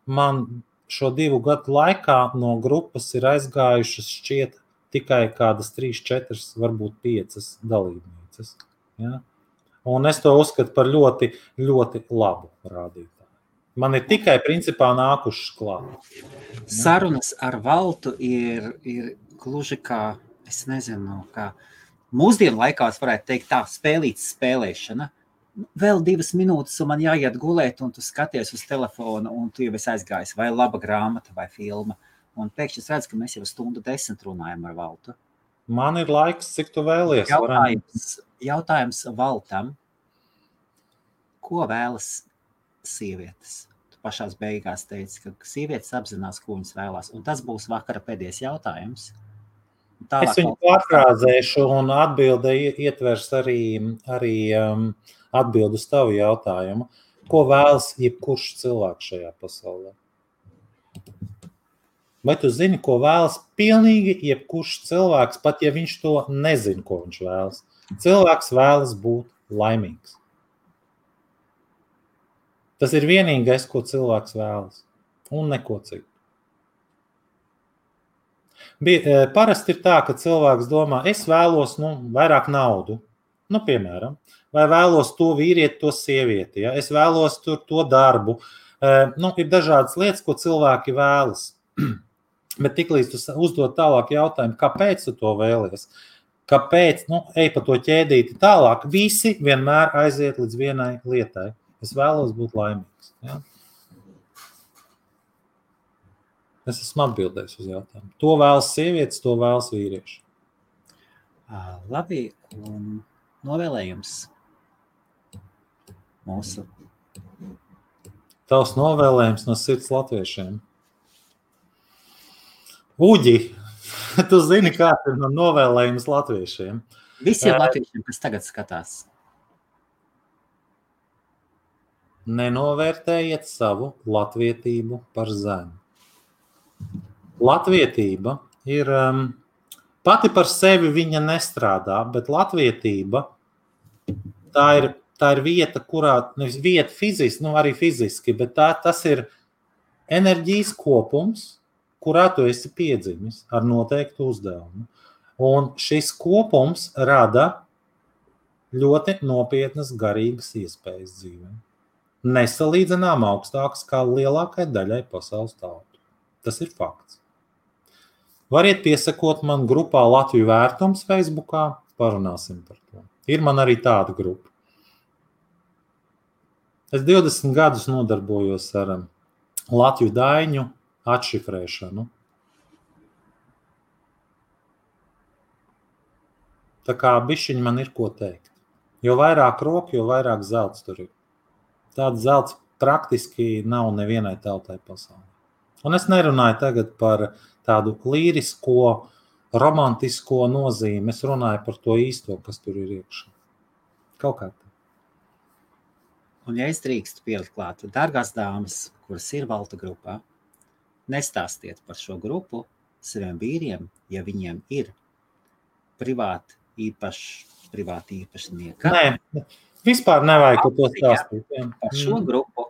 man šo 2 gadu laikā no grupas ir aizgājušas šķiet tikai kādas 3, 4, varbūt 5 dalībnieces. Ja? Un es to uzskatu par ļoti, ļoti labu rādītāju. Man ir tikai principā nākušas klāt. Ja? Sarunas ar Valtu ir gluži kā, es nezinu, kā mūsdienu laikās varētu teikt tā spēlītas spēlēšana. Vēl 2 minūtes un man jāiet gulēt un tu skaties uz telefonu un tu jau esi aizgājis vai laba grāmata vai filma. Un pēkšņi es redzu, ka mēs jau 1:10 runājam ar Valtu. Man ir laiks, cik tu vēlies. Jautājums Valtam. Ko vēlas sievietes? Tu pašās beigās teici, ka sievietes apzinās, ko viņas vēlās. Un tas būs vakara pēdējais jautājums. Es viņu pārfrāzēšu un atbilde ietvers arī atbildu uz tavu jautājumu. Ko vēlas jebkurš cilvēks šajā pasaulē? Vai tu zini, ko vēlas pilnīgi jebkurš cilvēks, pat ja viņš to nezina, ko viņš vēlas? Cilvēks vēlas būt laimīgs. Tas ir vienīgais, ko cilvēks vēlas, un neko citu. Parasti ir tā, ka cilvēks domā, es vēlos vairāk naudu, piemēram, vai vēlos to vīrieti, to sievieti, ja? Es vēlos to darbu. Ir dažādas lietas, ko cilvēki vēlas. Bet tiklīdz tu uzdod tālāk jautājumu, kāpēc tu to vēlies? Kāpēc? Ej pa to ķēdīti tālāk. Visi vienmēr aiziet līdz vienai lietai. Es vēlos būt laimīgs. Ja? Es esmu atbildējis uz jautājumu. To vēlas sievietes, to vēlas vīrieši. Labi, un novēlējums mūsu. Tavs novēlējums no sirds latviešiem. Uģi, tu zini, kāds ir man novēlējums latviešiem? Visiem latviešiem, kas tagad skatās. Nenovērtējiet savu latvietību par zemu. Latvietība ir, pati par sevi viņa nestrādā, bet latvietība tā ir vieta, kurā, nevis vieta fiziski, arī fiziski, bet tas ir enerģijas kopums, kurā tu esi piedzimis ar noteiktu uzdevumu. Un šis kopums rada ļoti nopietnas garīgas iespējas dzīvē. Nesalīdzinām augstākas kā lielākai daļai pasaules tautu. Tas ir fakts. Variet piesakot man grupā Latviju vērtums Facebookā, parunāsim par to. Ir man arī tāda grupa. Es 20 gadus nodarbojos ar Latviju daiņu atšifrēšanu. Tā kā bišķiņ man ir ko teikt. Jo vairāk roku, jo vairāk zelts tur ir. Tāds zelts praktiski nav nevienai tautai pasaulē. Un es nerunāju tagad par tādu līrisko, romantisko nozīmi. Es runāju par to īsto, kas tur ir iekšā. Kaut kā tā. Un ja es drīkstu pielikt klāt, dārgās dāmas, kuras ir Valta grupā, nestāstiet par šo grupu saviem vīriem, ja viņiem ir privāti īpašnieka. Nē, vispār nevajag to stāstīt. Par šo grupu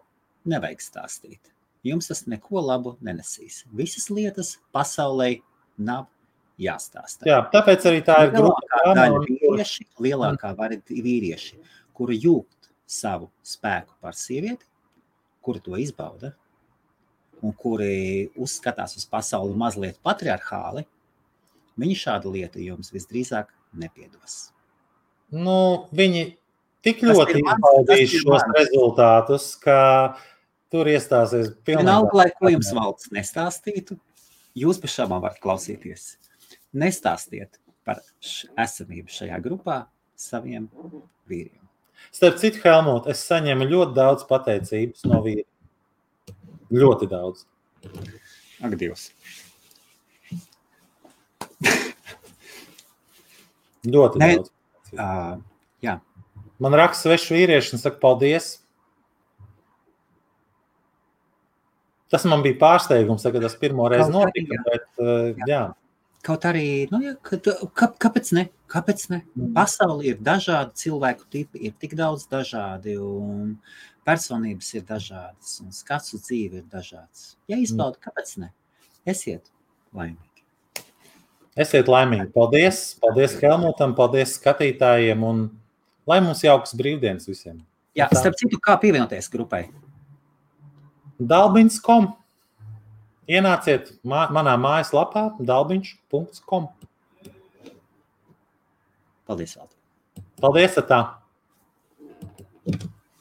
nevajag stāstīt. Jums tas neko labu nenesīs. Visas lietas pasaulē nav jāstāsta. Jā, tāpēc arī tā ir lielākā daļa vīrieši, kuri jūt savu spēku par sievieti, kuri to izbauda un kuri uzskatās uz pasauli mazliet patriarchāli, viņi šādu lietu jums visdrīzāk nepiedos. Viņi tik ļoti izbaudīs šos rezultātus, ka tur iestāsies pilnībā. Vienalga, lai ko jums valsts nestāstītu, jūs bez šābām varat klausīties. Nestāstiet par esamību šajā grupā saviem vīriem. Starp citu, Helmut, es saņemu ļoti daudz pateicības no vīriem. Ļoti daudz. Ak, Dievs. Ļoti daudz. Jā. Man raksta svešu vīrieši un saka paldies. Tas man bija pārsteigums, kad tas pirmo reizi notika, bet jā. Kaut arī, kāpēc ne? Kāpēc ne? Pasauli ir dažādi, cilvēku tipi ir tik daudz dažādi, un personības ir dažādas, un skats uz dzīvi ir dažāds. Ja izbauda, kāpēc ne? Esiet laimīgi. Esiet laimīgi. Paldies. Paldies Helmutam, paldies skatītājiem, un lai mums jaukas brīvdienas visiem. Jā, starp citu, kā pievienoties grupai? Dalbiņs.com. Ienāciet manā mājaslapā dalbiņš.com. Paldies, Valdi. Paldies, tā.